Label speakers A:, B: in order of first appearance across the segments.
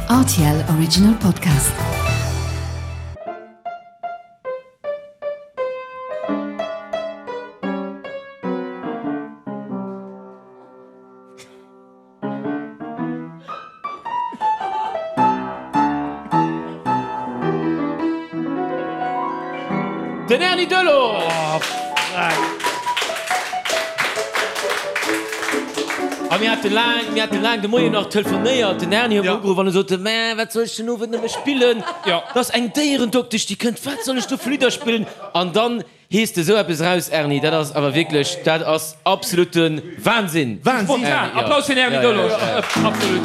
A: Rtl Original Podcast.
B: Den Erny Delorge! A mir hate laang, mir hate laang de Moien nach telefonéiert. Den Erny huet mer ugeruff an e sot, Mä wat soll ech den Owend nëmme spillen? Et ass eng Déierendoktesch, déi kënnt, wat soll ech do fir Lidder spillen? An dann Hees de sou eppes eraus, Erny? Dat ass awer wierklech, dat ass absolute Wahnsinn!
C: Wahnsinn!
B: Spontan!
C: Applaus fir den Erny Delorge! Absolut!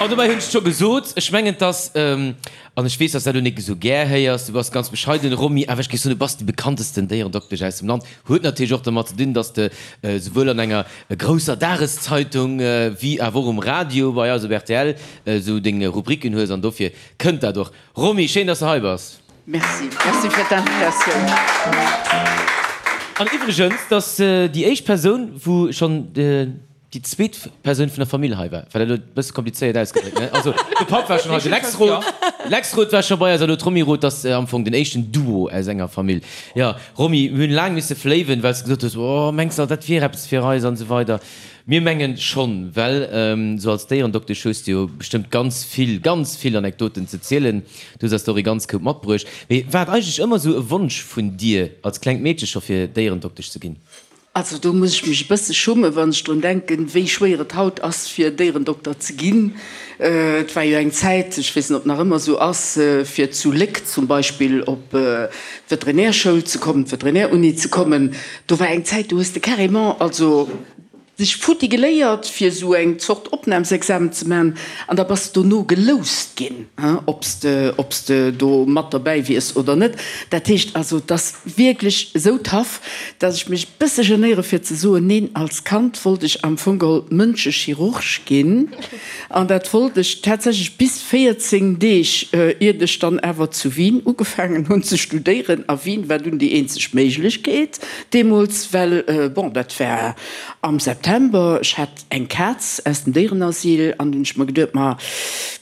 B: An dobäi hunn ech et scho gesot, ech mengen, dass, an ech weess, dass dat elo nik esou gär héiers, du bass ganz bescheiden, Romy, awer ech géif soen, du bass déi bekanntesten Déierendoktesch aus dem Land. Huet natierlech och dermat ze dinn, dass de souwuel an enger grousser Dageszeitung wéi awer och um Radio bei eis op rtl esou deng Rubriken hues an dofir kënnt dat och. Romy, schéin dass de hei bass.
D: Merci, merci fir d'Invitatioun.
B: An iwwregens, 't ass déi éischt Persoun, wou schonn déi zweet Persoun vun der Famill hei war. War dat elo e bësse komplizéiert ausgedréckt, ne? Also de Papp war schonn hei, de Lex Roth, Lex Roth war scho bei eis a lo d'Romy Roth. 't ass am Fong den éischten Duo aus enger Famill. Jo, Romy, mir hunn laang misse fléiwen, well s de gesot hues, Oh, mengs de, dat wier eppes fir eis an esou weider. Mir mengen schonn, well esou als Déierendoktesch hues de jo bestëmmt ganz vill, ganz vill Anekdoten ze zielen. Du hues eis der och ee ganz Koup matbruecht. Mee war et eigentlech ëmmer esou e Wonsch vun dir als klengt Meedche scho fir Déierendoktesch ze ginn?
D: Also do muss ech mech e bësse schummen, wann ech drun denken, wéi schwéier et haut ass fir Déierendokter ze ginn. Et war jo eng Zäit, ech weess net ob nach ëmmer esou ass, fir zu Léck zum Beispill op d'Veterinärschoul ze kommen, d'Veterinäruni ze kommen, do war eng Zäit, do hues de carrément also dech futti geléiert fir esou eng Zort Opnahmsexamen ze man an da bass de dono geloust ginn, ob s de, ob s de do mat derbäi wiers oder net. Dat heescht also, et ass wierklech esou tough, dass ech mech e bësse genéiere fir ze soen, neen, als Kand wollt ech am Fong geholl Mënschechirurg ginn. An dat wollt ech tatsächlech bis 14 Deeg, iert ech dann awer zu Wien ugefaangen hunn ze studéieren. A Wien war dunn déi eenzeg Méiglechkeet deemools, well, bon, dat war am September, ech hat eng Kaz aus dem Déierenasyl an hunn ech mer geduet, ma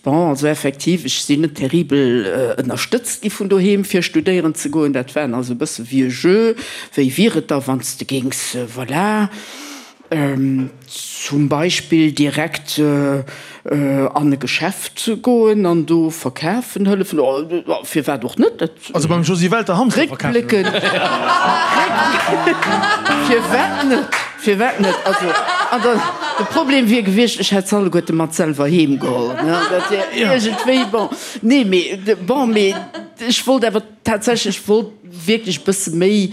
D: bon, also effektiv, ech sinn net terribel ënnerstëtzt gi vun doheem fir studéieren ze goen. Dat war also e bësse wéi e Jeu, wéi wier et da wann s de géings, voilà. Zum Beispill direkt an e Geschäft goen an do verkafen hëllefen, firwat och net?
C: Also beim Josy Welter Hamster verkafen
D: hëllefen. Firwat net? Firwat net? Also, an dann, de Problem wier gewiescht, ech hätt se alleguerte mat selwer heem geholl, ne? Dat wier iergendwéi, bon, nee, mee, bon, mee ech wollt awer Tatsächlech wollt wierklech e bësse méi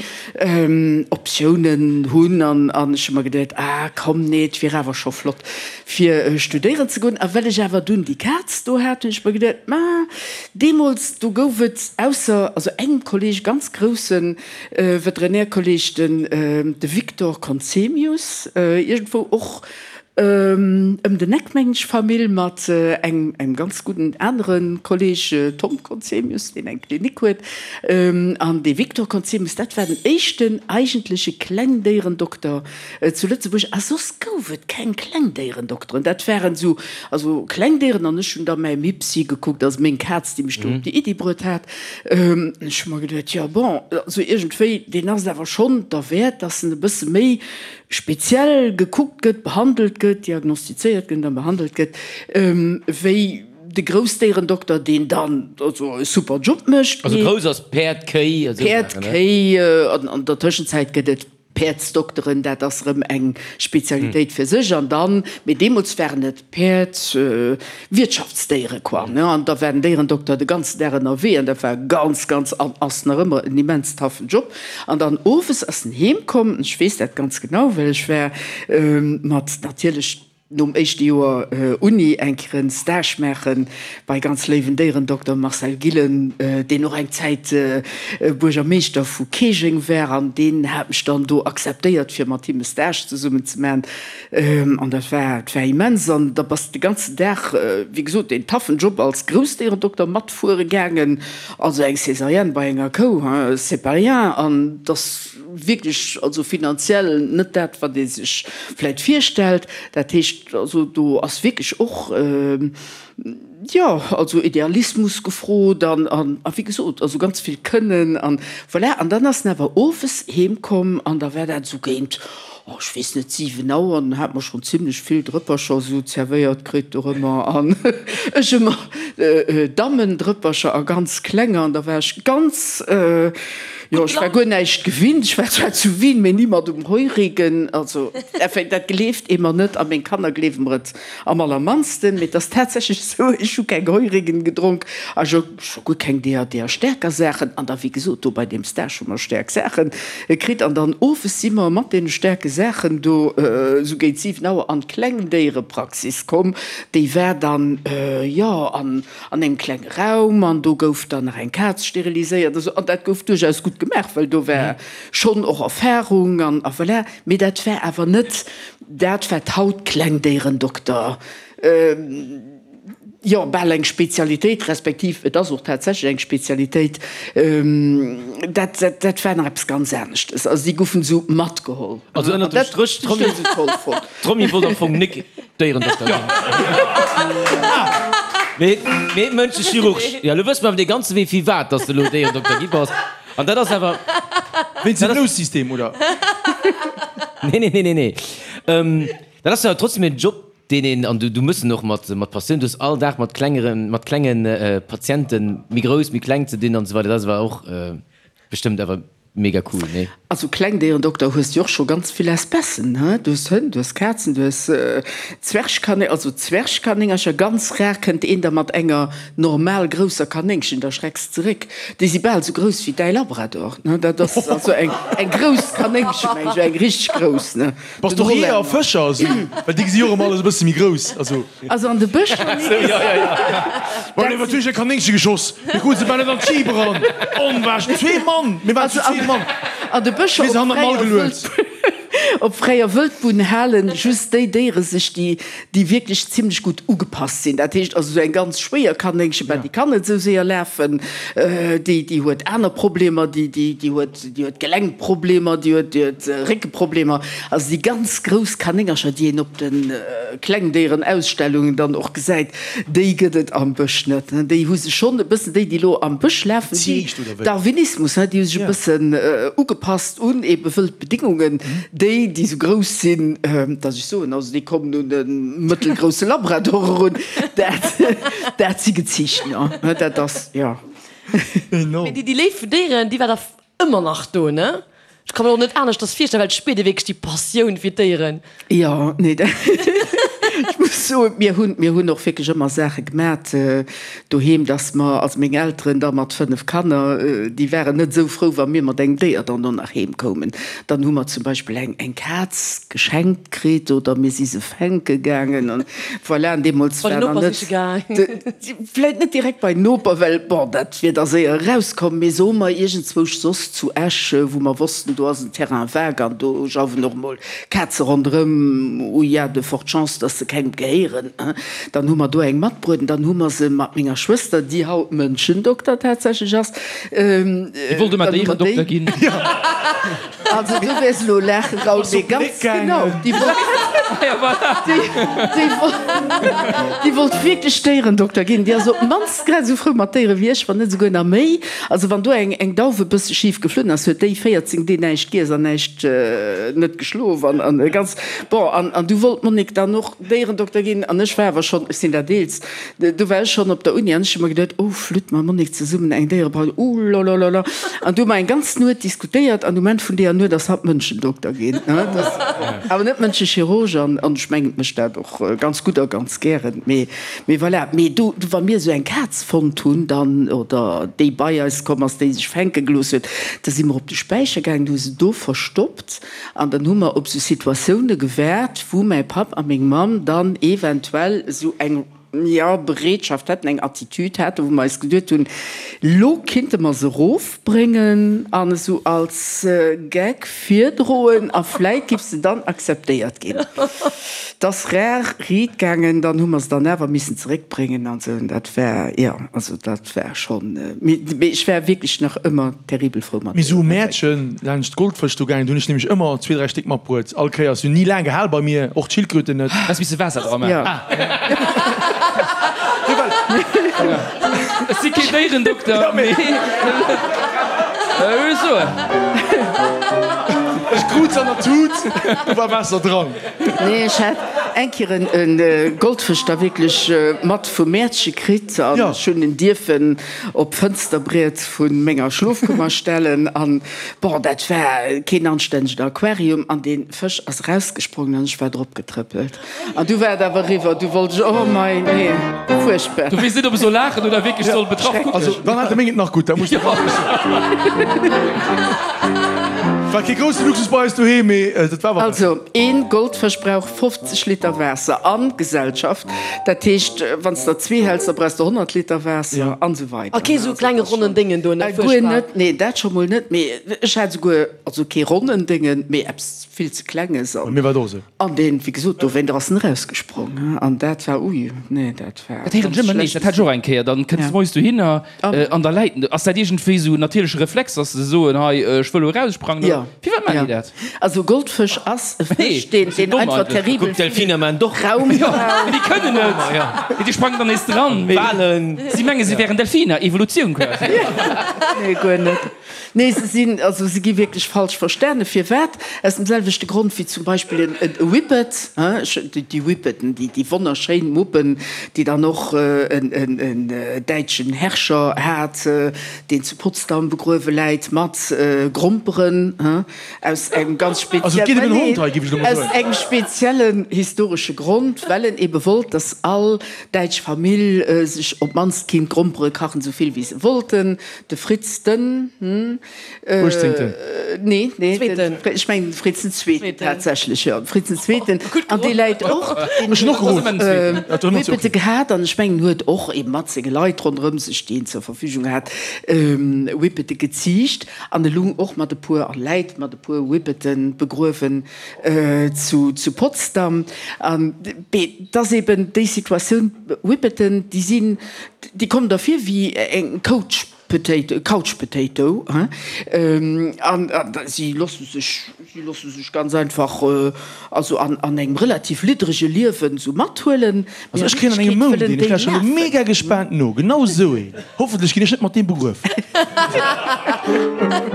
D: Optiounen hunn an an ech hu mer geduet, ah komm, nee, et wier awer scho flott fir studéieren ze goen. A well ech awer dunn déi Kaz do hat, hunn ech mer geduet, ma deemools do gouf et ausser also engem Kolleeg, ganz grousse Veterinärkolleeg, den de Victor Conzemius, iergendwou och Ëm den Eck, mengen ech, Famill mat engem ganz gudden anere Kolleg, Tom Conzemius, deen eng Klinik huet. An dee Victor Conzemius, dat war den éischten eigentleche Klengdéierendokter zu Lëtzebuerg. A soss gouf et keng Klengdéierendokteren. Dat waren esou, also Klengdéieren. An ech hunn da mäi Mipsi gekuckt, also meng Kaz, déi mech do op déi Iddi bruet hat. Ech hu mer geduet, jo bon, also iergendwéi, deen ass et awer schonn derwäert, dass en e bësse méi speziell gekuckt gëtt, behandelt gëtt, diagnostizéiert gëtt a behandelt gëtt, wéi de Groussdéierendokter, deen dann also e super Job mécht.
B: Also grouss ass Päerd, Kéi, esou
D: Päerd,
B: Saachen, ne?
D: Kéi, an an der Tëschenzäit gëtt et Päerdsdokteren, dat ass erëm eng Spezialitéit fir sech. An dann, mee deemools waren et Päerd, Wirtschaftsdéiere quoi, ne, an da war den Déierendokter de ganzen Dag ënnerwee an dat war ganz, ganz an ass nach ëmmer en immens taffen Job. An dann owes ass en heem komm, ech weess dat ganz genau, well ech war mat natierlech nom éischte Joer Uni eng Kéier en Stage maache bei ganz léiwen Déierendokter Marcel Gillen, deen och eng Zäit Buergermeeschter vu Keejeng war an deen hat mech dann do akzeptéiert fir mat him e Stage zesummen ze maachen. An dat war, dat war immens. An da bass de de ganzen Dag, wéi gesot, deen taffen Job als Groussdéierendokter matfuere gaangen. Also eng Césarienne bei enger Kou, hein, c'est pas rien. An 't ass wierklech, also finanziell net dat, wat ee sech vläit virstellt. Dat heescht. heescht, also do ass wierklech och, jo, also Idealismus gefrot an, an, a wéi gesot, also ganz vill Kënnen an voilà. An dann ass en awer owes heem komm an da war dat esou géint, oh, ech weess net, 7 Auer, an dann hate mer schonn zimlech vill Drëppercher esou zerwéiert kritt dorëmmer an ech ëmmer Dammendrëppercher a ganz klenger an da war ech ganz, jo, ech war guer näischt gewinnt, ech war zwar zu Wien, mee ni mat um Heurigen, also enfin, dat gleeft ee mer net a meng Kanner gleewe mer et Am allermannsten, mee et ass tatsächlech esou, ech hu keng Heurigen gedronk a scho guer keng deeër, deeër staarker Saachen. An da, wéi gesot, do bei deem Stage hu mer staark Saache kritt. An dann owes si mer mat deene staarke Saachen do esou géint 7 Auer an d'Klengdéierepraxis komm. Déi war dann, jo, an an engem klenge Raum an do gouf dann nach eng Kaz steriliséiert a sou. An dat gouf duerchaus gutt gemaach, well do war schonn och Erfahrung an a voilà. Mee dat war awer net Dat wat haut Klengdéierendokter, jo bal eng Spezialitéit, respektiv et ass och tatsächlech eng Spezialitéit, dat dat war nach eppes ganz aneschtes. Also déi goufen esou matgeholl.
B: Also ënnert dem Stréch, d'Romy wollt am Fong nik Déierendokter ginn, mee mee Mënschechirurg. Jo, elo wësse mer awer dee ganze Wee firwat dass de elo Déierendokter gi bass. An dat ass awer.
C: Wéinst dem Loussystem, oder?
B: Nee, nee, nee, nee, nee. Ähm, dat ass jo trotzdem en Job, deen een, an du, du mëss en och mat, mat Passioun, du hues all Dag mat klengeren, mat klengen Patienten, méi grouss, méi kleng ze dinn an esou weider. Dat ass awer och bestëmmt awer mega cool, nee?
D: Also Klengdéierendokter hues du och scho ganz vill Espècen, he? Du hues Hënn, du hues Kazen, du hues Zwergkanéng, also Zwergkanéngercher, ganz rar kënnt een da mat enger normal grousser Kanéngchen, da schrecks zeréck. Déi si bal sou grouss wéi däi Labrador, ne? Dat ass also eng eng grouss Kanéngchen, meng ech, eng richteg grouss, ne?
C: Bass de och Jeeër a Fëscher esou? Well déi gesi jo och ëmmer alles e bësse méi grouss, also.
D: Also an de Bëscher,
C: Nick. Well iwwer duerch e Kanéngche geschoss, mir krute se bal net an d'Jeep eran. Onwahrsch, zwee Mann, mir waren zu zwee Mann.
D: An de Bëscher
C: Mir se hannert d'Mall geluet.
D: op fräier Wëldbunn halen just déi Déiere sech, déi déi wierklech zimlech gutt ugepasst sinn. Dat heescht also esou eng ganz schwéier Kanéngchen, bah, déi kann net esou séier lafen, déi, déi huet aner Problemer, déi, déi, déi huet, déi huet Gelenkproblemer, déi huet, déi huet Réckeproblemer. Also déi ganz grouss Kanéngercher, déi een op de Klengdéierenausstellungen dann och gesäit, déi gëtt et am Bësch net. Déi hu sech schonn e bëssen, déi, déi elo am Bësch lafen, déi, Darwinismus, déi hu sech e bëssen ugepasst un ebe wëld Bedingungen. Déi, déi esou grouss sinn, datt ech soen, also déi kommen un e mëttelgrousse Labrador erun, dat, dat si geziicht, jo. Dat ass, jo.
E: Mee déi Léift fir Déieren, déi war da ëmmer nach do, ne? Ech ka mer och net aneschters virstellen, well et spiert ee wierklech déi Passioun fir d'Déieren.
D: Jo, nee, ech muss soen, mir hunn, mir hunn och wierklech ëmmer Saache gemat doheem, dass mer, also meng Elteren da mat 5 Kanner, déi waren net esou frou, wa mir mat engem Déier dann do nach heem koumen. Dann hu mer zum Beispill eng, eng Kaz geschenkt kritt oder mir si se fänke gaangen an voilà. An deemools
E: Bei
D: war
E: den
D: nach
E: Noper
D: net
E: siche gaang.
D: vläit net direkt bei den Noper, well bon, dat wier da séier erauskomm, mee soe mer iergendzwousch soss zu Esch, wou mer wossten, do ass en Terrain vague an do jauwen och emol Kaze ronderëm, où il y a de fortes chances, dass se kengem gehéieren. Dann hu mer do eng matbruet an dann hu mer se mat menger Schwëster, déi haut Mënschendokter tatsächlech ass,
B: Déi wollt ëmmer Déierendokter ginn.
D: Also du wäers elo laachen, Raoul, mee ganz genau, déi wollt, déi wollt wierklech Déierendokter ginn. Déi ass op d'mannst grad esou frou mat Déiere wéi ech, wann net esouguer nach méi. Also wann do eng, eng Dauf e bësse schif geflunn ass, huet déi 14 Dee näischt giess an näischt, net geschlof an, an ganz, bon, an, an du wollt d'Monique dann och Déierendokter ginn an ech war awer schonn, ech sinn dat Eelst, du war ech schonn op der Uni an ech hu mer geduet, oh flütt, mam Monique zesummen eng Déierebrau, oulalala. An du hu mer eng ganz Nuet diskutéiert an um Enn vun deeër Nuet ass hatt Mënschendokter ginn, awer net Mënschechirurg an, an ech mengen, et mécht dat och ganz gutt a ganz gären, mee, mee voilà. Mee do, wa mir esou eng Kaz fonnt hunn dann, oder déi bei eis komm ass, déi sech fänke gelooss huet, da si mer op de Späicher gaangen, hu se do verstoppt. An dann hu mer op esou Situatioune gewaart, wou mäi Papp a meng Mamm dann eventuell esou eng. jo, Bereetschaft hätten, eng Attitüd haten, wou mer eis geduet hunn, lo kinnte mer se erofbréngen an esou als Gag virdroen a vläit giff se dann akzeptéiert ginn. 't ass rar riit gaangen, dann hu mer se dann awer missen zeréckbréngen an esou. Dat war, jo, also dat war schonn, mee ech war wierklech nach ëmmer terribel frou mat
C: Mir si um Mäertchen laanscht d'Goldfësch do gaangen, do hunn ech nämlech ëmmer zwee, dräi Stéck matbruet. All Kéiers. Si hunn ni laang gehal bei mir, och d'Schildkröten net.
B: Häss misse Waasser dra maachen. Ech si keen Déierendokter, mee ech soen.
C: Ech krut se an der Tut, do war Waasser dran.
D: Nee, ech hat eng Kéier e Goldfësch da wierklech mat vum Mäertche kritt an ech hunn en dierfen op d'Fënsterbriet vu menger Schlofkummer stellen an bon, dat war keen anstännegen Aquarium an dee Fësch ass erausgesprongen an ech war drop getrëppelt an du war et awer eriwwer, du wollt ech, oh mei, nee, fuerchtbar.
B: Du weess net, ob ech soll laachen oder wierklech soll betraff kucken.
C: Also dann hat de meng et nach gutt, da muss de War kee grousse Luxus bei eis doheem, mee dat war awer.
D: Also een Goldfësch brauch 50 Liter Waasser an Gesellschaft. Dat heescht, wann s der zwee häls, da brauchs de 100 Liter Waasser an esou weider.
E: A kee sou klenge ronnen Déngen do, ne?
D: Guer net, nee, dat scho mol net. Mee ech hat esouguer, also kee ronnen Déngen, mee eppes vill ze Klenges.
C: Bei mir war et och esou.
D: An deen, wéi gesot, dowéint ass en erausgesprong. An dat war, ui, nee, dat war
B: Dat héieren ech ëmmer nees. Dat hat ech och eng Kéier. Dann kënns de moies dohinner an da läit en do. Ass dat iergendwéi esou en natierleche Reflex, dass se soen, hei, ech wëll elo eraussprangen?
D: Oder
B: firwat maachen déi dat?
D: Also Goldfësch ass e Fësch, deen deen einfach terribel
B: vill Raum brauch. Déi kënnen net, déi sprangen dann nees dran. Mee si menge si wären Delfiner, Evolutioun quasi.
D: Nee, guer net. Nee, se sinn, also se gi wierklech falsch verstane. Firwat? Aus dem selwechte Grond wéi zum Beispill en e Whippet, hein, déi Whippeten, déi déi wonnerschéin Muppen, déi dann och en en däitschen Herrscher hat, deen zu Potsdam begruewe läit mat Gromperen, hein, aus engem ganz
C: Also et geet ëm en Hond hei, géif ech elo mol
D: aus
C: soen.
D: engem speziellen historesche Grond, well en ebe wollt, dass all däitsch Famill sech op d'mannst kinnt Grompere kachen, esou vill wéi se wollten. De Fritz den.
C: Uechtzéngten.
D: Nee, nee, ech mengen de Fritz den Zweeten tatsächlech, jo, de Fritz den Zweeten. An dee läit och, deen huet och Whippete gehat an ech mengen huet och ebe mat senge Leit ronderëm sech, déi en zur Verfügung hat, Whippete geziicht an e lung och mat e puer, a läit mat e puer Whippete begruewen zu Potsdam. An et ass eben déi Situatioun, Whippeten, déi sinn, déi kommen der vir wéi eng Coach Potato, Couch Potato, hein, an si loosse sech, si loosse sech ganz einfach, also an an engem relativ liddrege Liewen esou mathuelen.
C: Also ech kréien an engem Mount een, ech lauschteren elo mega gespaant no, genau esou een. Hoffentlech ginn ech net mat deem begruef.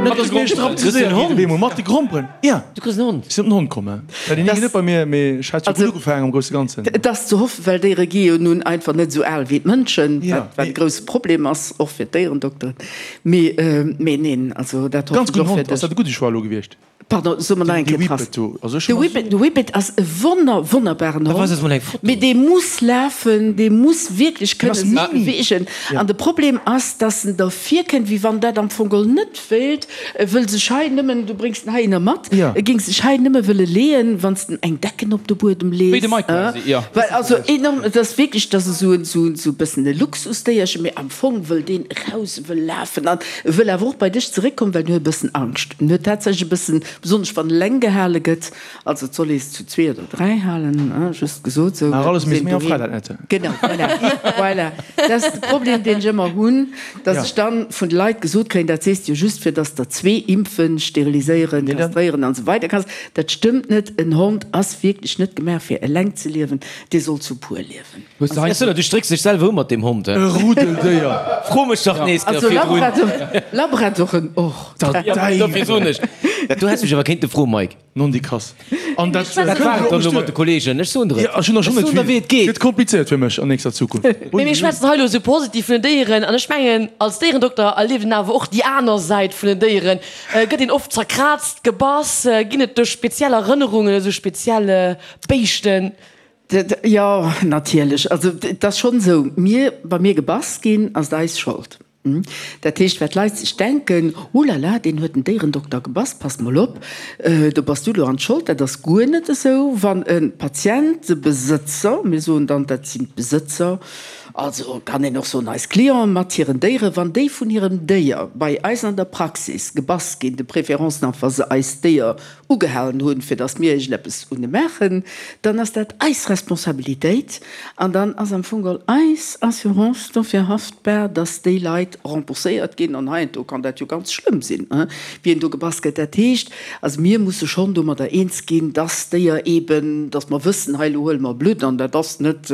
C: Net dass mir strapaziséiert ginn op eemol mat de Gromperen. Ja.
B: Du kriss en Hond.
C: Ech sinn op den Hond komm, hè. Ja, deen hing net bei mir, mee ech hat jo gutt ugefaangen am grousse Ganzen.
D: Et ass ze hoffen, well Déiere gi jo nun einfach net esou al wéi d'Mënschen, wat wat e grousse Problem ass, och fir d'Déierendokteren. Mee, mee neen, also dat
C: hoffen ech och fir dech. Ganz gudden Hond. Ass dat e gudde Choix elo gewiescht?
D: Pardon, so mer nach eng
C: Kéier
D: d'Rass.
C: De Whippet do. Also ech hu
D: De Whippet, de Whippet ass e wonner, wonnerbaren Hond, mee dee muss lafen, dee muss wierklech kënne sech beweegen. An de Problem ass, dass en der virkënnt, wéi wann dat am Fong geholl net wéilt. E wëll sech hei nëmmen, du bréngs en heihinner mat, e géing sech hei nëmme wëlle leeën, wann s de eng Decken op de Buedem lees.
B: Wéi de Mike quasi, jo.
D: Well also enorm, et ass wierklech, et ass esou en, esou, esou e bëssen e Luxusdéierchen, mee am Fong wëll deen eraus, e wëll lafen an e wëll awer och bei dech zeréckkommen, well en huet e bëssen Angscht. En huet tatsächlech e bëssen, besonnesch wann eleng gehale gëtt, also et soll ee se zu zwee oder dräi halen, just gesot esou.
C: Nach alles méi am Fräiland net.
D: Genau, voilà, voilà. Dat ass de Problem, deen ech ëmmer hunn, dass ech dann vun de Leit gesot kréien, dat sees de jo just, fir dass der zwee impfen, steriliséieren, kastréieren an esou weider kanns. Dat stëmmt net. En Hond ass wierklech net gemaach, fir eleng ze liewen, dee soll zu puer liewen.
B: Du strécks dech selwer u mat deem Hond, he?
C: E Rudeldéier.
B: Fro mech dach nees
D: Also
B: virdrun.
D: Labradoren och.
B: Dofir soen ech dat. Du häss mech awer kéinte froen, Mike.
C: Nondikass. An dat
B: Dat war et dann elo mat de Kollegen. Ech soen der et.
C: Ja, ech hunn der schonn net vill.
B: Wéi et geet.
C: Gëtt komplizéiert fir mech an nächster Zukunft.
E: Mee mir schwätzen hei elo esou positiv vun den Déieren an ech mengen, als Déierendokter erlieft een awer och déi aner Säit vun den Déieren. Gëtt een oft zerkraazt, gebass? Ginn et do speziell Erënnerungen, esou speziell Béischten?
D: Jo, natierlech. Also et ass schonn esou, mir, wa mir gebass ginn, ass et eis Schold. Dat heescht, wat d'Leit sech denken, Oh la la, deen huet den Déierendokter gebass, pass mol op, do bass du elo an d'Schold. Dat ass guer net esou. Wann e Patient de Besëtzer, mir soen dann, dat sinn d'Besëtzer, also kann een och soen eis Clienten mat hiren Déieren, wann déi vun hirem Déier bei eis an der Praxis gebass ginn, de préférence nach wa se eist Déier ugehalen hunn, fir datt mir iergendeppes un e maachen, dann ass dat eis Responsabilitéit an dann ass am Fong geholl eis Assurance dofir haftbar, datt déi Leit rembourséiert ginn. An heiansdo kann dat jo ganz schlëmm sinn, wien do gebass gëtt. Dat heescht also, mir musse schonn domadder eens ginn, datt d'Déier eeben, datt mer wëssen, hei elo huele mer Blutt an dat ass net,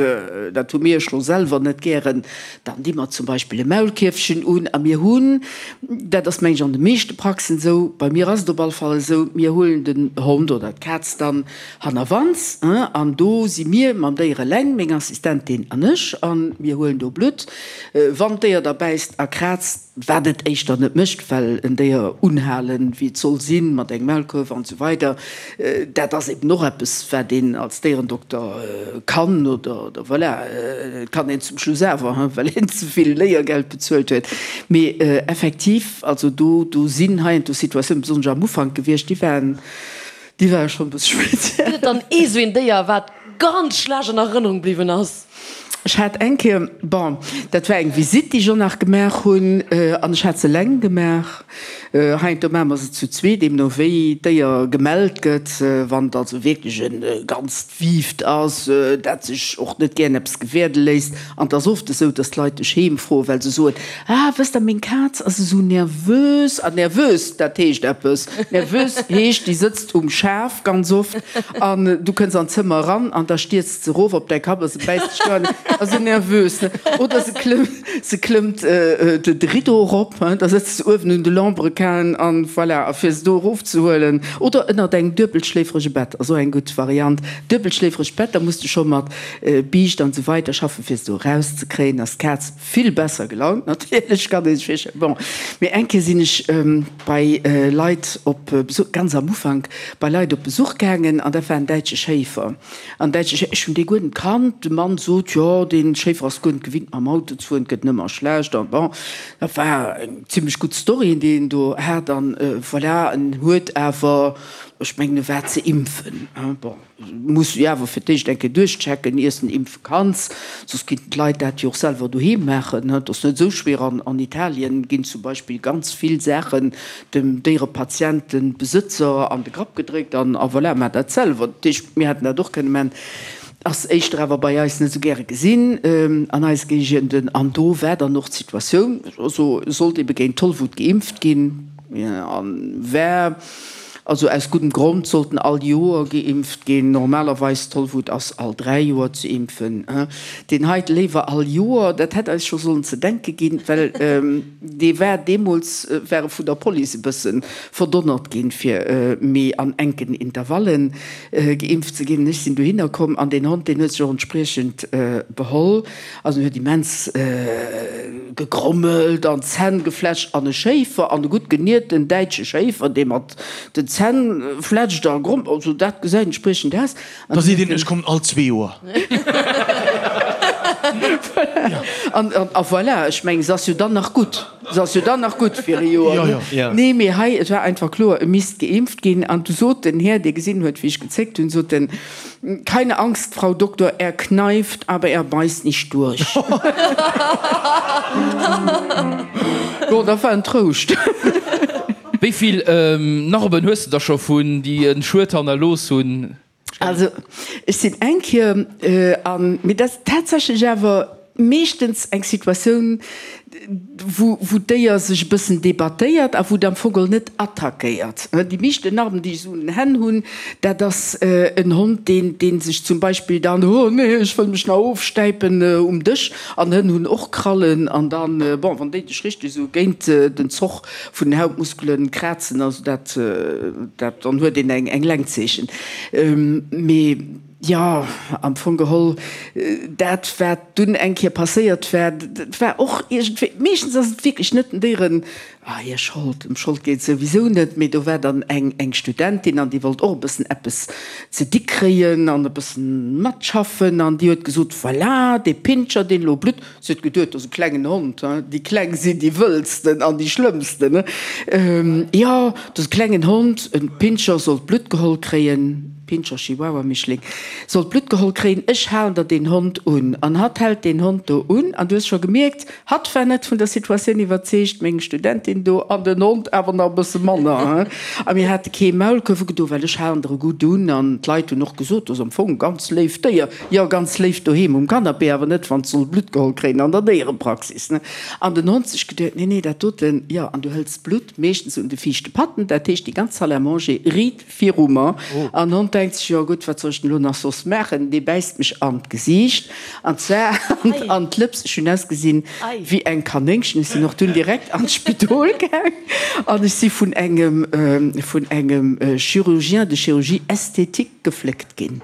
D: dat hu mir elo selwer net gären, Dann di mer zum Beispill e Maulkierfchen un a mir hunn, dat ass meng ech an de meeschte Praxen esou, bei mir ass et op alle Fall esou, mir huelen den Hond oder d'Kaz dann hannerwands an do si mir mam Déier eleng, meng Assistentin an ech, a mir huelen do Blutt. Wann d'Déier da bäisst a kraazt, wat et éischter net mécht, well en Déier unhalen, wéi et soll sinn, mat engem Maulkuerf an esou weider, dat ass eben och eppes, wat een als Déierendokter kann oder, voilà, et kann een zum Schluss awer, hein, well een ze vill Léiergeld bezuelt huet. Mee effektiv, also do, do sinn heiansdo Situatiounen, besonnesch am Ufank gewiescht, déi waren, déi ware schonn e bësse speziell.
E: Gëtt et dann ee sou een Déier, wat ganz schlecht an Erënnerung bliwwen ass?
D: Ech hat eng Kéier, bon, dat war eng Visitt, déi ech och nach gemaach hunn, an ech hat se eleng gemaach. Heiansdo maache mer se zu zweet, deemno wéi d'Déier gemellt gëtt. Wann et also wierklech e ganzt Wiift ass, dat sech och net gären eppes gewäerde léisst. An et ass oft esou, datt d'Leit dech heem froen, well se soen, Ah, wësst Der, meng Kaz ass esou nervös. An nervös, dat heescht eppes. Nervös heescht, déi sëtzt um Schaf ganz oft an du kënns an d'Zëmmer eran an da stierzt se erof op däi Kapp a se bäisst dech do an ass esou nervös, ne? Oder se klëmmt, se klëmmt de Rideau erop, hein, da sëtzt se uewen un de Lambrequinen an voilà, a fir se do erofzehuelen. Oder ënnert engem duebelschléiferege Bett ass och eng gutt Variant. Duebelschléiferegt Bett, da muss de scho mat Biischt an esou weider schaffen, fir se do erauszekréien, ass d'Kaz vill besser gelaunt natierlech, kann ee sech virstellen. Bon, mee eng Kéier sinn ech bei Leit op Besuch, ganz am Ufank, bei Leit op Besuch gaangen an dat war en däitsche Schéifer. An däitsche Schéifer, ech hunn dee guer net kannt. De Mann sot, jo, dee Schéifer ass guer net gewinnt mam Auto ze fueren, et gëtt nëmmer schlecht an bon, dat war eng zimlech gutt Story, déi en do hat an voilà, en huet awer, ech mengen e war ze impfen, bon. Muss du jo awer fir d'éischt eng Kéier duerchchecken, iers den impfe kanns, soss kinnten d'Leit dat jo och selwer doheem maachen. Et ass net esou schwéier. An an Italien ginn zum Beispill ganz vill Saachen dem Déierepatientenbesëtzer an de Grapp gedréckt an a voilà, maach dat selwer. Dat heescht, mir hätten dat och kënne maachen. Ass éischter awer bei eis net esou gäre gesinn an eise Géigenden. An do war dann och d'Situatioun, also sollt ebe géint Tollwut geimpft ginn an war. Also aus guddem Grond sollten all Joer geimpft ginn. Normalerweis, Tollwut ass all 3 Joer ze impfen. Deen heite léiwer all Joer. Dat hätt eis scho sollen ze denke ginn, well dee war deemools war e vun der Police e bësse verdonnert ginn, fir méi an enken Intervallen geimpft ze ginn. Ech sinn dohinner komm an deen Hond, deen huet sech och entspriechend beholl. Also en huet immens gegrommelt an d'Zänn gefletscht an e Schéifer, an e gutt genierten däitsche Schéifer, dee mat den Zänn fletscht a grommelt, also dat gesäit entspriechend aus.
C: An Da seet een, ech kommen all zwee Joer.
D: An a voilà, ech mengen, se ass jo dann nach gutt, se ass jo dann nach gutt fir e Joer, ne? Nee, mee hei, et war einfach kloer, e misst geimpft ginn. An du sot den Här, dee gesinn huet, wéi ech gezéckt hunn, sot en, Keine Angst, Frau Doktor, er kneift, aber er beißt nicht durch. Bon, dat war en Trouscht.
F: Wéi vill Narben hues de der scho vun déi en Schued hannerlooss hunn?
D: Also ech sinn eng Kéier an, mee dat ass tatsächlech awer meeschtens eng Situatioun, wou wou d'Déier sech e bëssen debattéiert a wou et am Fong geholl net attackéiert. Déi meeschten Narben, déi ech esou un den Hänn hunn, dat ass en Hond, deen dee sech zum Beispill dann, oh nee, ech wëll mech nach ofstäipen um Dësch, an Hënn hunn och Krallen, an dann, bon, wann déi dech richteg esou géint den Zoch vun den Hautmuskelen krazen, also dat dat dann huet een eng eng Längzeechen. Mee. Jo, am Fong geholl, dat wat dunn eng Kéier passéiert war, dat war och iergendwéi, meeschtens ass et wierklech net den Déieren hir Schold, ëm Schold geet et souwisou net, mee do war dann eng eng Studentin an déi wollt och e bëssen eppes ze di kréien an e bëssen matschaffen an déi huet gesot, voilà, dee Pinscher, deen elo blutt, Si huet geduet, dat ass e klengen Hond, hein, déi Kleng sinn déi wëllsten an déi schlëmmsten, jo, dat ass e klengen Hond, e Pinscher sollt Blutt geholl kréien, Pinscher, Chihuahua, Mischling, sollt Blutt geholl kréien, ech halen der deen Hond un. An hatt hält deen Hond do un an du hues scho gemierkt, hatt war net vun der Situatioun iwwerzeegt, meng Studentin do an den Hond awer nach e bësse manner, hein. A mir hate kee Maulkuerf ugedo, well ech halen der e gutt un an d'Leit hunn och gesot, dat ass am Fong e ganz léift Déier. Jo, ganz léif doheem um Canapé, awer net wann s'soll Blutt geholl kréien an der Déierepraxis, ne? An den Hond sech geduet, nee, nee, dat doten, jo, an du hëls d'Blutt meeschtens un de viischte Patten, dat heescht déi ganz Salle à manger riit viru mer. An den Hond denkt sech, jo gutt, wat soll ech denn elo nach soss maachen? Dee bäisst mech an d'Gesiicht, an zwar an d'Lëps. Ech hunn ausgesinn wéi eng Kanéngchen. Ech sinn och dunn direkt an d'Spidol gaang an ech si vun engem, vun engem Chirurgien de chirurgie esthétique gefléckt ginn.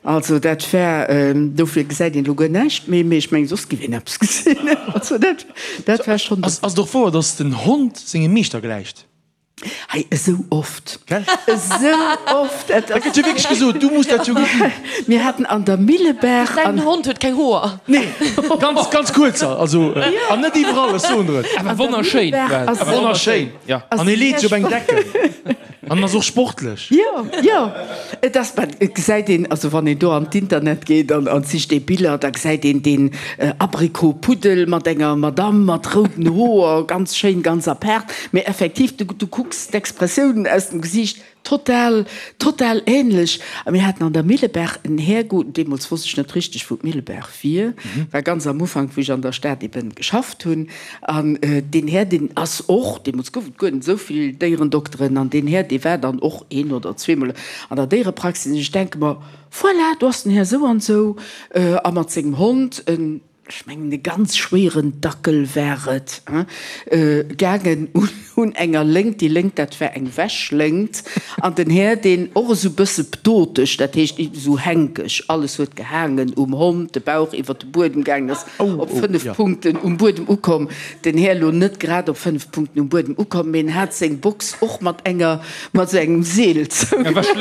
D: Also dat war, dofir gesäit een elo guer näischt méi, mee ech mengen soss giff een eppes gesinn. Also dat, dat war schonn.
C: Ass et och wouer, datt den Hond sengem Meeschter gläicht?
D: Hei, esou oft, esou oft.
C: Dat gëtt jo wierklech gesot, du muss dat jo gesinn.
D: Mir haten an der Millebaach.
E: Däin Hond huet keng Hoer.
C: Nee, ganz, ganz kuerzer, also an net iwwerall, ech soen der et.
F: Awer wonnerschéin.
C: Awer wonnerschéin, an e leet sech op eng Decken. An ass och sportlech.
D: Jo, jo, et ass, mä et gesäit een, also wann een do an d'Internet geet an an sicht ee Biller, da gesäit een deen Abrikot-Puddel mat enger Madamm mat rouden Hoer, ganz schéin, ganz apaart, mä effektiv, du du kucks d'Expressiounen aus dem Gesiicht, total, total ähnlech. A mir haten an der Millebaach en Här, deemools wosst ech net richteg, wou d'Millebaach wier, war ganz am Ufank, wou ech an der Stad eben geschafft hunn, An deen Här, deen ass och, deemools gouf et guer net esou vill Déierendokteren, an deen Här, dee war dann och een oder zweemol an der Déierepraxis. An ech denke mer, Voilà, do ass den Här sou an sou, a mat sengem Hond, en, ech mengen e ganz schwéieren Dackel war et, gaangen un enger Léngt. Déi Léngt, dat war eng Wäschléngt. An den Här, deen och esou bësse ptoteg, dat heescht esou hänkeg, alles huet gehaangen um Hond, de Bauch iwwer de Buedem gaangen ass, op 5 Punkten um Buedem ukomm. Den Här lo net grad op 5 Punkten um Buedem ukomm, mee en hat seng Box och mat enger, mat esou engem Seel zougemaach.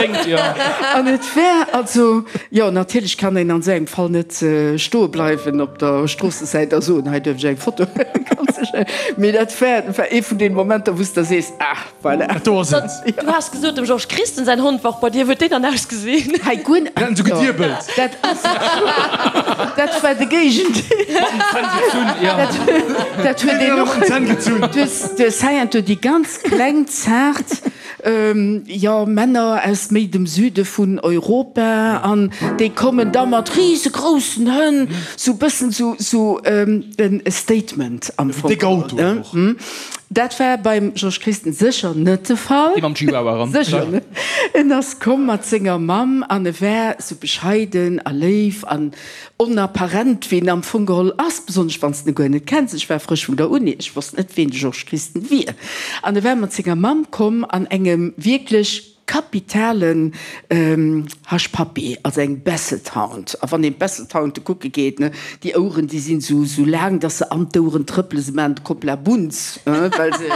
D: An et war also, jo, natierlech kann een an esou engem Fall net stoe bleiwen op der Stroossesäit a soen, hei duerf ech eng Foto huelen, ganz sécher. Mee dat war, war ee vun deene Momenter, wou s de da sees, ah. Voilà.
C: Do ass et.
E: Du has gesot, dem Georges Christen säin Hond war och bei dir. Wéi huet deen dann ausgesinn?
D: Hei guer net.
C: Mir haten sou gediebelt.
D: Dat ass, dat war de Géigendeel.
F: Mat den Zänn gezunn, ja.
D: Dat huet een och.
C: Mat den Zänn gezunn.
D: Du hues, du hues heiansdo déi ganz kleng, zaart, jo, Männer aus méi dem Süde vun Europa an déi kommen da mat risegroussen Hënn, sou bëssen sou, sou e Statement am Fong.
C: Déck Autoen och.
D: Dat war beim Georges Christen sécher net de Fall.
F: Dee mam Chihuahua eran.
D: Sécher net. En ass komm mat senger Mamm an e war sou bescheiden a léif an onapparent, wéi en am Fong geholl ass, besonnesch wann s de en guer net kenns. Ech war frësch vun der Uni, ech wosst net, ween de Georges Christen wier. An e war mat senger Mamm komm an engem wierklech Kapitalen Hush Puppy, also eng Basset Hound. A wann een d'Basset Hounde kucke geet, ne, déi Oueren, déi sinn esou, esou laang, dass se an d'Oueren trëppelen. Se maachen de Koppla Bunz, well se,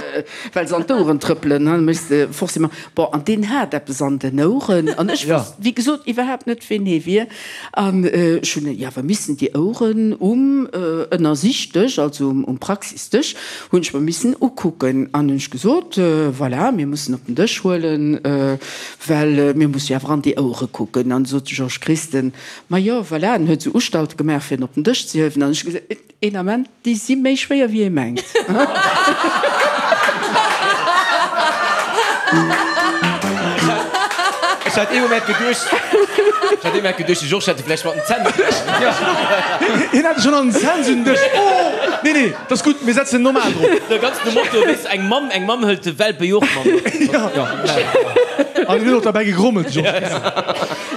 D: well se an d'Oueren trëppelen, ne, méchs de forcément. Bon, an deen hat eppes an den Oueren an ech wousst, wéi gesot, iwwerhaapt net, ween hee wier. An ech hunn jo awer missen déi Oueren um Ënnersichtdësch, also um Praxisdësch, hunn ech mer missen ukucken. An hunn ech gesot, Voilà, mir mussen op den Dësch huelen, well mir musse jo awer an déi Ouere kucken. An du sot de Georges Christen, Ma jo, voilà. En huet esou Ustalte gemaach, fir en op den Dësch ze hiewen. An ech hu gesot, Een Ament, déi si méi schwéier wéi ee mengt.
B: Ech hat ee Moment geduecht, ech hat ee Moment geduecht, de Georges hätt e vläicht mat den Zänn geduecht.
C: Hien hat e schonn an den Zänn, sou den Dësch. Oh! Nee, nee, dat ass gutt, mir setzen en normal drop.
B: Ganz nom Motto, weess, eng Mamm, eng Mamm hëlt de Welpe jo och mat.
C: An en huet och derbäi gegrommelt, de Georges Mischo.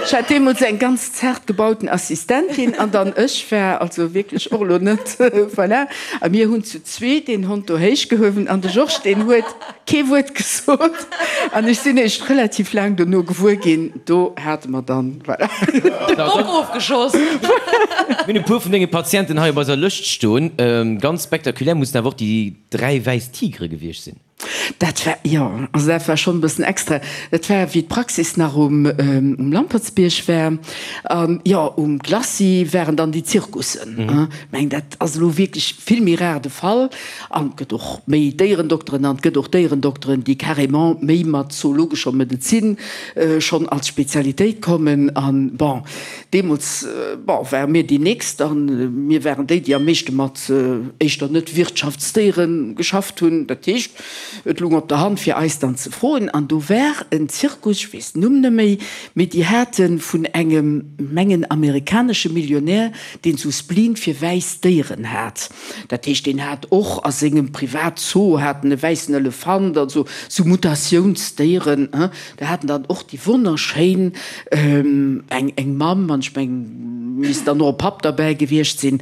D: Ech hat deemools eng ganz zart gebauten Assistentin an dann ech war also wierklech och elo net, voilà. A mir hunn zu zweet deen Hond do héich gehuewen an de Georges, deen huet kee Wuert gesot an ech sinn eréischt relativ laang dono gewuer ginn, do hate mer dann, voilà.
E: De Bock ofgeschoss.
B: Mir hunn e puer vun denge Patienten hei op eiser Lëscht stoen. Ganz spektakulär mussen awer och déi 3 wäiss Tigere gewiescht sinn.
D: Dat war, jo, also dat war schonn e bëssen extra. Dat war, wéi d'Praxis nach um, um Lampertsbierg war. An, jo, um Glacis waren dann déi Zirkussen. Ech mengen, dat ass elo wierklech vill méi rar de Fall. An et gëtt och méi Déierendokteren an et gëtt och Déierendokteren, déi carrément méi mat zoologescher Medezin schonn als Spezialitéit kommen. An, bon, Deemools, bon, ware mir déi nächst a mir waren déi, déi am meeschte mat éischter net Wirtschaftsdéiere geschafft hunn. Dat heescht, et lung op der Hand fir eis dann ze froen. An do war en Zirkus, ech weess den Numm net méi, mee déi hate vun engem, mengen amerikanesche Millionär, deen sou Spleen fir wäiss Déieren hat. Dat heescht, deen hat och a sengem Privatzoo hat en e wäissen Elefant, also sou Mutatiounsdéieren. Do haten dann och déi wonnerschéin eng eng Mamm an ech mengen misst dann och e Papp derbäi gewiescht sinn,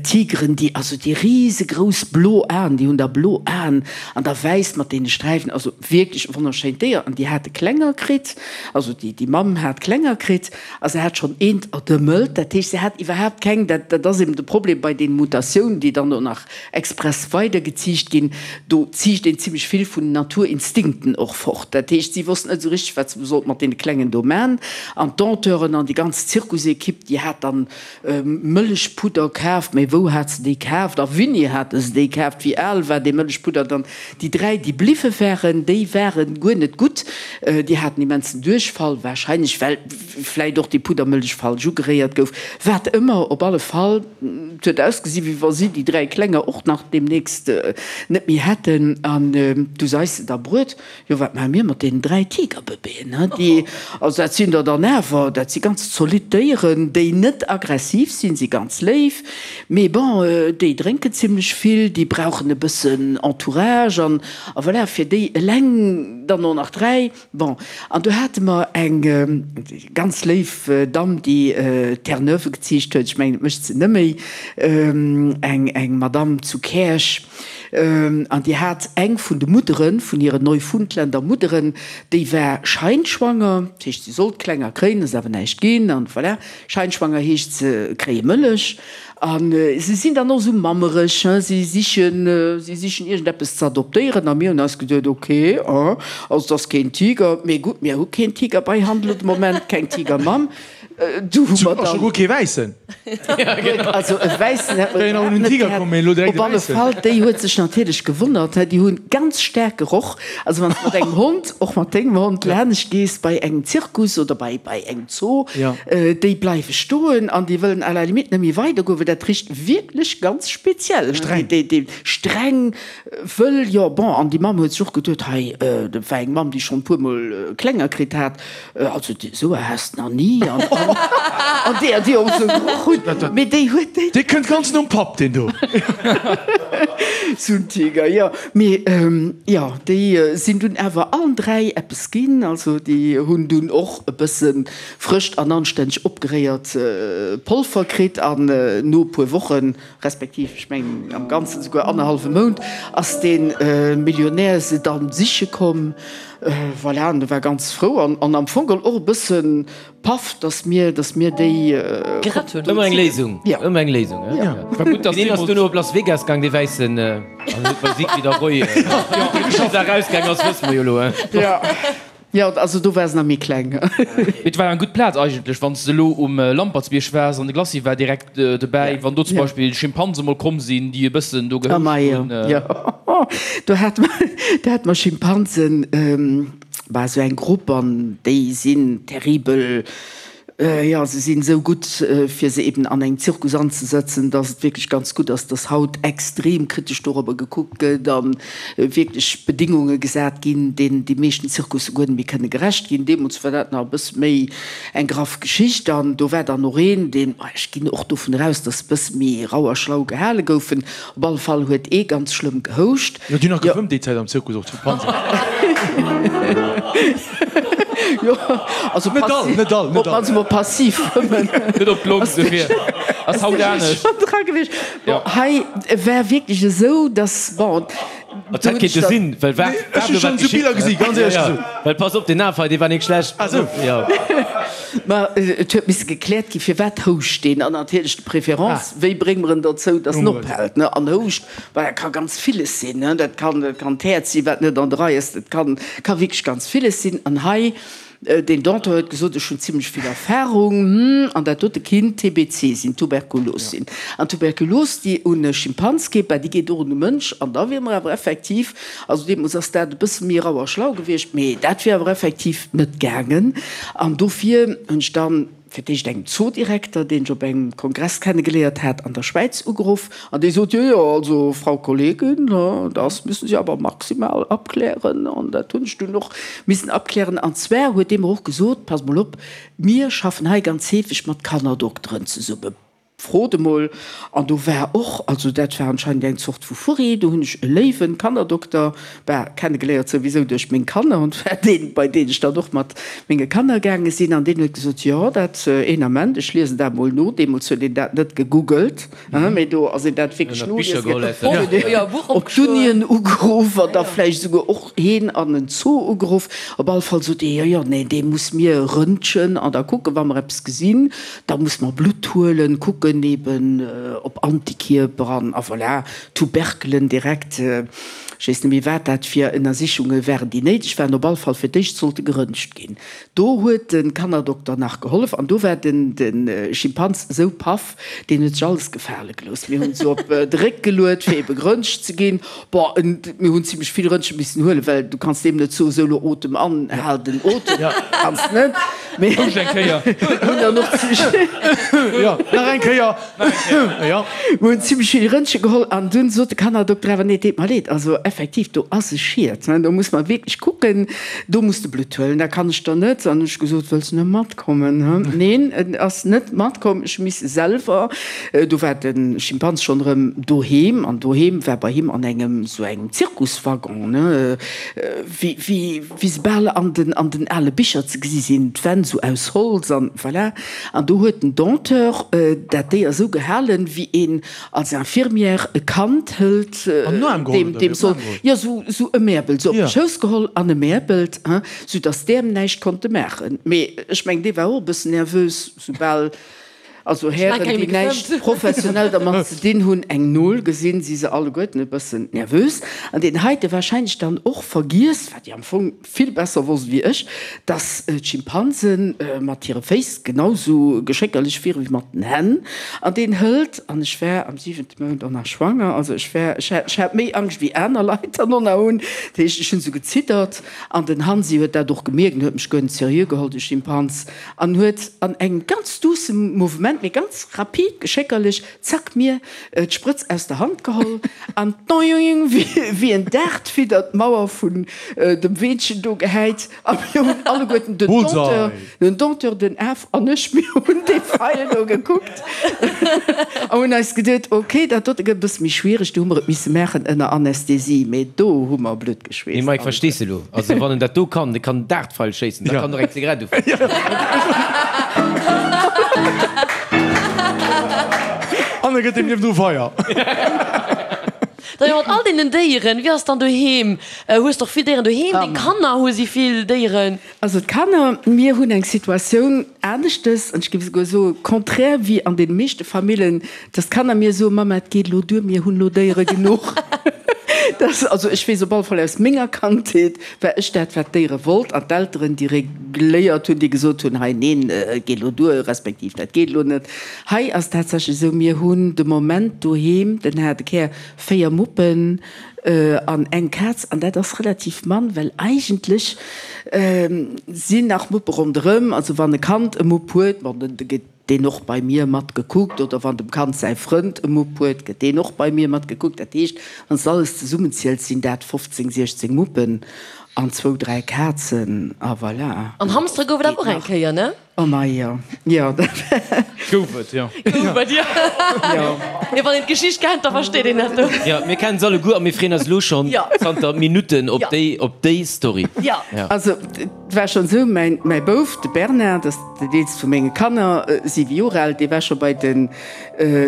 D: Tigeren, déi also déi risegrouss blo Aen, déi hunn da blo Aen an da wäiss mat deene Sträifen, also wierklech e wonnerschéint Déier. An déi hate Klenger kritt, also déi déi Mamm hat Klenger kritt a se hat schonn eent erdëmmelt. Dat heescht, se hat iwwerhaapt keng, dat dat ass eben de Problem bei deenen Mutatiounen, déi dann och nach express weidergeziicht ginn, do ziicht een zimlech vill vun den Naturinstinkten och fort. Dat heescht, si wossten net esou richteg, wat se sollt mat deene Klengen do man. An d'Dompteuren an déi ganz Zirkusekipp, déi hat dann Mëllechpudder kaaft, mä wou hat se déi kaaft a winni hate se déi kaaft, wéi al war dee Mëllechpudder dann? Déi 3, déi bliwwe waren, déi ware guer net gutt, déi haten immensen Duerchfall, warscheinlech well vläit och déi Puddermëllech falsch ugeréiert gouf, wat ëmmer, op alle Fall, et huet ausgesi wéi wa si déi 3 Klenger och nach deemnächst net méi hätten. An du seis se da bruet, jo wat maache mir mat deenen 3 Tigerbëbeeën, he, déi, also dat sinn der dann awer, dat si ganz zolidd Déieren, déi net aggressiv sinn, si ganz léif, mee bon, déi drénken zimlech vill, déi brauchen e bëssen Entourage an a voilà, fir déi eleng dann och nach 3. Bon, an do hate mer eng ganz léif Damm, déi Terre-Neuve geziicht huet, ech mengen, et mécht se nëmméi, eng, eng Madamm zu Käerch, an déi hat eng vun de Mudderen, vun hiren Neufundländer Mudderen, déi war scheinschwanger, dat heescht, si sollt Klenger kréien, ass awer näischt ginn, an voilà, scheinschwanger heescht, se kréie Mëllech. A se sinn dann och esou mammereg, hein, si sichen, si sichen iergendeppes ze adoptéieren. A mir hunn eis geduet, ok, hein, also et ass keen Tiger, mee gutt, mir hu keen Tiger bei Hand elo de Moment, keng Tigermamm. Du hu mer
C: dann. A scho guer kee Wäissen.
D: Also e Wäissen hätt mer iwwerhaapt net gehat. Op alle Fall, déi huet sech natierlech gewonnert, hein, déi hunn ganz staark geroch. Also wann s de mat engem Hond, och mat dengem Hond, laanescht gees bei engem Zirkus oder bei bei engem Zoo, déi bleiwe stoen an déi wëllen à la limite net méi weidergoen, well dat richt wierklech ganz speziell. Streng. Déi, déi streng, wëll, jo bon. An déi Mamm huet sech och geduet, hei, dat war eng Mamm, déi schonn e puermol Klenger kritt hat, also esou e has de nach ni an an déi déi och esou geroch hunn, mee déi huet déi.
C: Dee kënnt ganz nom Papp, deen do.
D: Sou en Tiger, jo. Mee jo, déi sinn dunn awer allen 3 eppes ginn. Also déi hunn dunn och e bësse frëscht an anstänneg opgeréiert Polver kritt an no e puer Wochen, respektiv ech mengen am Ganzen souguer annerhallwe Mount, ass dee Millionär se dann siche komm. Voilà, an e war ganz frou an am Fong geholl och e bësse paff, dass mir, dass mir déi
E: Gerett hunn.
B: Ëmmer eng Léisung, ëmmer eng Léisung, he?
F: War gutt, dass
B: Deen ass duerno op Las Vegas gaang, dee Wäissen, an huet bei Siegfried a Roy geschafft. Wéi dat erausgaang ass, wësse mer jo elo, he?
D: Jo, jo, also do war se nach méi kleng.
F: Mee et war eng gutt Plaz eigentlech, wann s de elo um Lampertsbierg waars an de Glacis war direkt dobäi, wann do zum Beispill Schimpanse mol komm sinn, déi e bëssen do gehouscht hunn.
D: Jo, do hate mer, do hate mer Schimpansen, Bah, esou eng Grupp, an déi sinn terribel, jo, se sinn esou gutt, fir se eben an engem Zirkus anzesetzen, dass et wierklech ganz gutt ass, dass haut extrem kritesch dorobber gekuckt gëtt a wierklech Bedingunge gesat ginn, deenen déi meeschten Zirkusse guer net méi kënne gerecht ginn. Deemools war dat nach e bësse méi eng graff Geschicht an do war dann och een, deen, ech ginn och dovun eraus, dass e bësse méi rau a schlau gehale goufen, Op alle Fall huet ee ganz schlëmm gehouscht.
C: Jo, déi hunn nach gefëmmt déi Zäit am Zirkus, och d'Schimpansen.
D: Jo, also
C: Net all, net all, net all.
D: Op mol passiv fëmmen.
F: Net op d'Long, dofir ass haut anescht.
D: Schonn dra gewiescht. Bon, hei war wierklech esou, dass, bon,
B: Et hätt kéinte sinn, well wat
C: Ech hu schonn esou Biller gesi, ganz éierlech gesot.
B: Well pass op, deen Af hei, dee war nik schlecht.
C: Ah sou.
B: Jo.
D: Ma et huet misse gekläert ginn, firwat houscht deen? An natierlech de Préférence, wéi brénge mer en dozou, dass en ophält, ne? An houscht, well dat ka ganz villes sinn, ne? Dat kann, dat kann d'Häerz sinn, wat net an der Rei ass, dat kann, ka wierklech ganz villes sinn. An hei, deen Danton huet gesot, ech hunn zimlech vill Erfahrung, hm, an dat dote kinnt TBC sinn, Tuberkulos sinn. An Tuberkulos, déi un e Schimpans geet, bah, déi geet och un e Mënsch. An da wier mer awer effektiv, also deemools ass dat e bësse méi rau a schlau gewiescht, mee dat wier awer effektiv net gaangen. An dofir hunn ech dann, fir d'éischt engem Zoodirekter, deen ech op engem Kongress kennegeléiert hat an der Schwäiz, ugeruff an dee sot, Jo, jo, also Frau Kollegin, das müssen Sie aber maximal abklären. An dat hunn ech dunn och missen abklären. An zwar huet dee mer och gesot, Pass mol op, mir schaffen hei ganz heefeg mat Kannerdokteren zesummen. Frot emol. An do war och, also dat war anscheinend eng Zort vu Furri, do hunn ech e léiwen Kannerdokter, bah, kennegeléiert souwisou duerch meng Kanner, an war deen, bei deen ech dann och mat menge Kanner gaange sinn. An deen huet gesot, jo, dat, een Ament, ech liesen dat emol no. Deemools huet een dat net gegoogelt, hein, mee do ass een dat wierklech noliese gaangen, op d'Unien ugeruff an da vläicht esouguer och heen an en Zoo ugeruff. Op alle Fall sot dee, jo, jo, nee, dee muss mir röntgen an da kucken, wa mer eppes gesinn. Da muss mer Blutt huelen, kucken eben op Antikierper an a voilà, Tuberkelen direkt. Ech weess net méi wat dat fir Ënnersichunge waren, déi néideg waren. Op alle Fall fir d'éischt sollte geröntgt ginn. Do huet de Kannerdokter nach gehollef an do war den de Schimpans esou paff, deen huet sech alles gefale gelooss. Mir hunn se op de Réck geluet fir ebe geröntgt ze ginn. Bon, mir hunn zimlech vill Röntgen missen huelen, well du kanns deem net soen, sou lo otem an, hal den Otem, kanns net. Mee
F: Houscht eng Kéier.
D: hunn dann och zimmlech.
C: Jo, nach eng Kéier. Jo.
D: Mir hunn zimmlech vill Röntgen geholl an dunn sot de Kannerdokter awer, nee, deet mer leed, also effektiv, do ass e Schiet, do muss mer wierklech kucken, do muss de Blutt huelen, dat kann ech der net. An hunn ech gesot, wëlls de net matkommen? Neen, en ass net matkomm, ech hu misse selwer. Do war de Schimpans schonn erëm doheem, an doheem war bei him an engem sou engem Zirkuswaggon, ne, wéi, wéi, wéi se bal an den, an den ale Bicher ze gesi sinn, d'Wänn sou aus Holz an voilà. An do huet den Dompteur dat Déier sou gehalen, wéi een als Infirmière e Kand hëlt,
C: An den Aarm geholl,
D: deem,
C: oder
D: deem
C: wéi? Op den
D: soll,
C: Aarm geholl?
D: jo, sou, sou ëmäerbelt, sou op
C: Ja.
D: de Schouss geholl an ëmäerbelt, hein, sou dass d'Äerm näischt konnte maachen. Mee ech mengen, dee war och e bëssen nervös, soubal. Also Hären, déi näischt professionell dermat ze dinn hunn, eng Nol gesinn, si se alleguerten e bëssen nervös. An deen heite wahrscheinlech dann och vergiess, wat déi am Fong vill besser wosst wéi ech, dass d'Schimpansen mat hire Féiss genau sou geschéckerlech wiere wéi mat den Hänn. An deen hëlt, an ech war am siwente Mount och nach schwanger, also ech war, ech hat, ech hat méi Angscht wéi aner Leit dann och nach hunn, dat heescht, ech hunn sou geziddert. An den Hansi huet dat och gemierkt an huet mech guer net seriö geholl, de Schimpans. An huet an engem ganz duussem Mouvement, mee ganz rapid, geschéckerlech, zack, mir d'Sprëtz aus der Hand geholl an doing, wéi en Dartfieder d'Mauer vun dem Weenchen do gehäit. A mir hunn alleguerten, den Dompteur, den Dompteur, den Af an ech, mir hunn dee Feil do gekuckt a hunn eis geduet, ok, dat dote gëtt e bësse méi schwiereg, do hu mer et misse maachen ënner Anästhesie, mee do hu mer Blutt
B: Mee Mike, verstees de elo? Also wann en dat do kann, dee kann en Dartpfeil schéissen, da kann en och eng Zigarett ufänken.
C: An e gëtt deem niewendru Feier.
E: Da jo, mat all deenen Déieren, wéi ass dann doheem? Hues de och vill Déieren doheem? Deng Kanner, hu si vill Déieren?
D: Also d'Kanner, mir hunn eng Situatioun aneschtes, an ech géif esouguer soe contraire wéi an deene meeschte Famillen, dass d'Kanner mir soen, Mama, et geet elo duer, mir hunn elo Déiere genuch. Dat, also ech weess op alle Fall aus menger Kandheet, war ech dat, wat d'Déiere wollt, an d'Elteren, déi regléiert hunn, déi gesot hunn, hei neen, et geet elo duer, respektiv dat geet elo net. Hei ass tatsächlech esou, mir hunn de Moment doheem, den haarde Kär, 4 Muppen, An eng Kaz, an dat ass relativ mann, well eigentlech sinn nach Muppe ronderëm. Also wann e Kand e Mupp huet, bon, da gëtt deen och bei mir mat gekuckt, oder wann dem Kand säi Frënd e Mupp huet, gëtt deen och bei mir mat gekuckt. Dat heescht, wann s de alles zesummenziels, sinn dat 15, 16 Muppen. An zwou, dräi Kazen, a voilà.
E: An Hamstere gouf et awer och eng Kéier, ne?
D: Oh mei, jo. Jo, dat
F: war. Gouf et, jo.
E: Gouf et, jo. Jo. Jo, wann een d'Geschicht kennt, da versteet een dat.
B: Jo, mir kennen se alleguer a mir freeën eis elo schonn zanter Minutten op déi, op déi Story.
E: Jo.
D: Also, et war schonn esou, mäin, mäi Bouf, de Bernard, dat ass den eelste vu menge Kanner, siwe Joer al, dee war scho bei de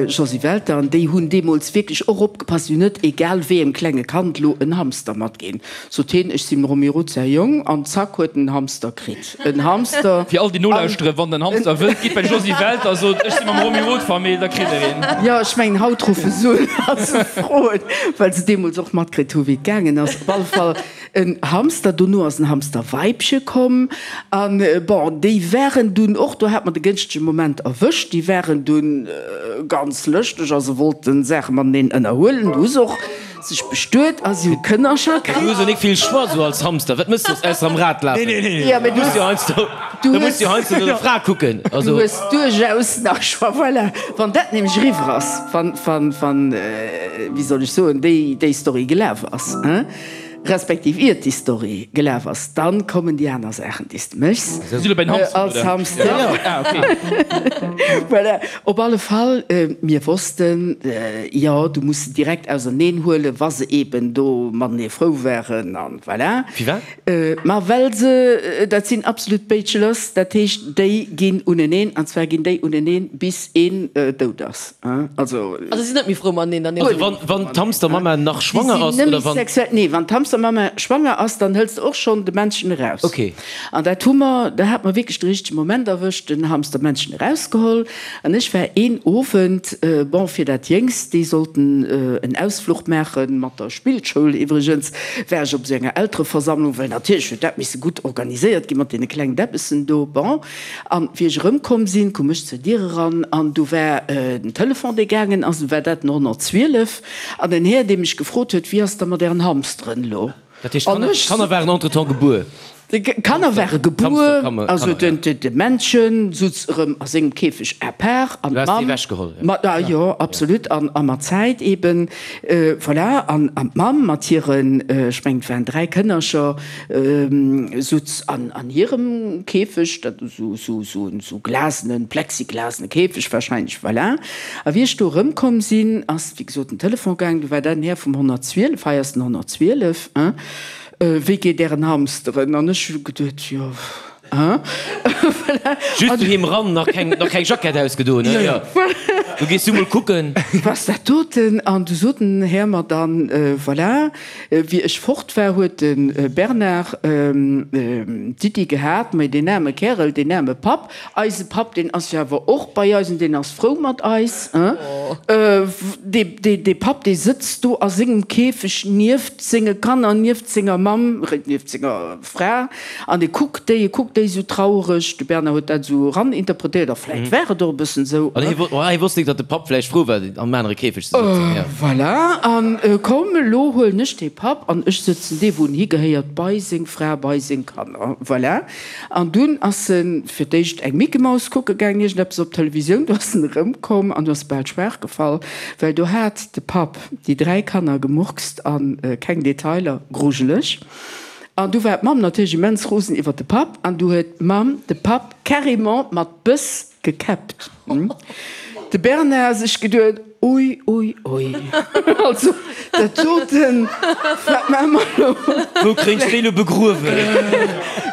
D: Josy Welter, an déi hunn deemools wierklech och opgepasst, déi hunn net egal wéi engem klenge Kand elo en Hamster matginn. Sot hien, ech sinn dem Romy Roth säi Jong, an zack huet en en Hamster kritt. En Hamster.
F: Fir all déi nolauschteren, wann der en Hamster wëllt, gitt bei de Josy Welter a sot, ech si mam Romy Roth Famill, da kritt der een.
D: Jo, ech mengen haut ruffe se un a se froen, well se deemools och matkritt hu wéi et gaangen ass. Op alle Fall en Hamster, dono ass en Hamsterweibche komm an bon, déi waren dunn och, do hat mer de gënschtege Moment erwëscht, déi waren dunn ganz lëschteg a se wollten Saache mateneen ënnerhuelen. Du hues och Sech bestuet a si hu Kënnercher kritt.
B: Du hues jo nik vill Choix sou als Hamster. Wat mëss de soss ausser am Rad lafen?
D: Jo, mee du
B: hues jo heiansdo, du muss jo heiansdo no der Fra kucken.
D: Du hues duerchaus nach Choix. Voilà, wann dat nämlech eriwwer ass, wann, wann, wann, wéi soll ech soen, déi, déi Story gelaf ass, hein, respektiv iert déi Story gelaf ass, dann kommen déi aner Saachen, déi s de méchs als Hamster. Voilà, op alle Fall, mir wossten, jo, du muss se direkt auserneen huelen, wa se eben do matenee frou waren an voilà.
B: Firwat?
D: Ma well se, dat sinn absolut Bachelors, dat heescht, déi ginn uneneen, an zwar ginn déi uneneen, bis een dout ass.
E: Also. Also si sinn net méi frou mateneen dann.
B: Also wann, wann d'Hamstermamma nach schwanger ass, oder wann.
D: Sexuell, nee, wann d'Hamstermamma schwanger ass, dann hëls de och schonn de Männchen eraus.
B: Okay.
D: An dat hu mer, da hat mer wierklech de richtege Moment erwëscht, den Hamstermännchen erausgeholl. An ech war een Owend, bon, fir dat Jéngst, déi sollten en Ausfluch maache mat der Spillschoul iwwregens, war ech op esou enger Eltereversammlung, well natierlech huet dat misse gutt organiséiert gi mat deene klengen Däppessen do. Bon, an wéi ech erëmkomm sinn, koum ech zur Dier eran an du war den Telefon, dee gaangen ass, du war dat den 112 an en Här, dee mech gefrot huet, Wéi ass da mat ären Hamsteren elo?
B: Dat heescht, d'Kanner waren entretemps gebuer?
D: D'Kanner ware gebuer, also de Männchen sutz erëm a sengem Käfeg à part an d'Mamm. Mat, jo, absolut, an a mat Zäit eben, voilà, an d'Mamm mat hiren, ech mengen et waren 3 Kënnercher, sutz an hirem Käfeg, dat esou glasenen, plexiglasene Käfeg wahrscheinlech, voilà. A wéi ech do erëmkomm sinn, ass wéi gesot den Telefon gaangen, du war dat den Här vum 112, hei ass den 112, hein, wéi geet Ären Hamsteren? An ech hu geduet, jo, hein,
B: voilà. Just doheem ran, nach keng, nach keng Jackett ausgedoen, hein, jo, du gees du mol kucken.
D: Was dat doten? An du sot den Här mer dann, voilà, wéi ech fort war, huet de Bernard d'Iddi gehat, mais deen aarme Kärel, deen aarme Papp, Eise Papp, deen ass jo awer och bei eis an deen ass frou mat eis. Dee Papp, dee sëtzt do a sengem Käfeg nieft senge Kanner, nieft senger Mamm, nieft senger Fra an e kuckt déi, e kuckt déi esou trauereg. De Bernard huet dat esou eraninterpretéiert, a vläicht war et och e bëssen esou.
B: An hie wosst nik, datt de Papp vläicht frou war, am anere Käfeg ze
D: sëtzen. Voilà, an komm, elo huelen ech dee Papp an ech sëtzen dee, wou en higehéiert, bei seng Fra, bei seng Kanner. Voilà. An dunn ass en fir d'éischt eng Mickey-Maus kucke gaangen, iergendeppes op Televisioun. Du ass en erëmkomm an du ass bal schwaach gefall, well do hat de Papp déi 3 Kanner gemurkst an keng Detailer, grujeleg. An du war d'Mamm natierlech immens rosen iwwer de Papp an du huet d'Mamm de Papp carrément mat Bëss Gekäppt. De Bernard sech geduet, Ui, ui, ui, also dat doten, wat maache mer elo?
B: Wou kréint ech déi elo begruewen?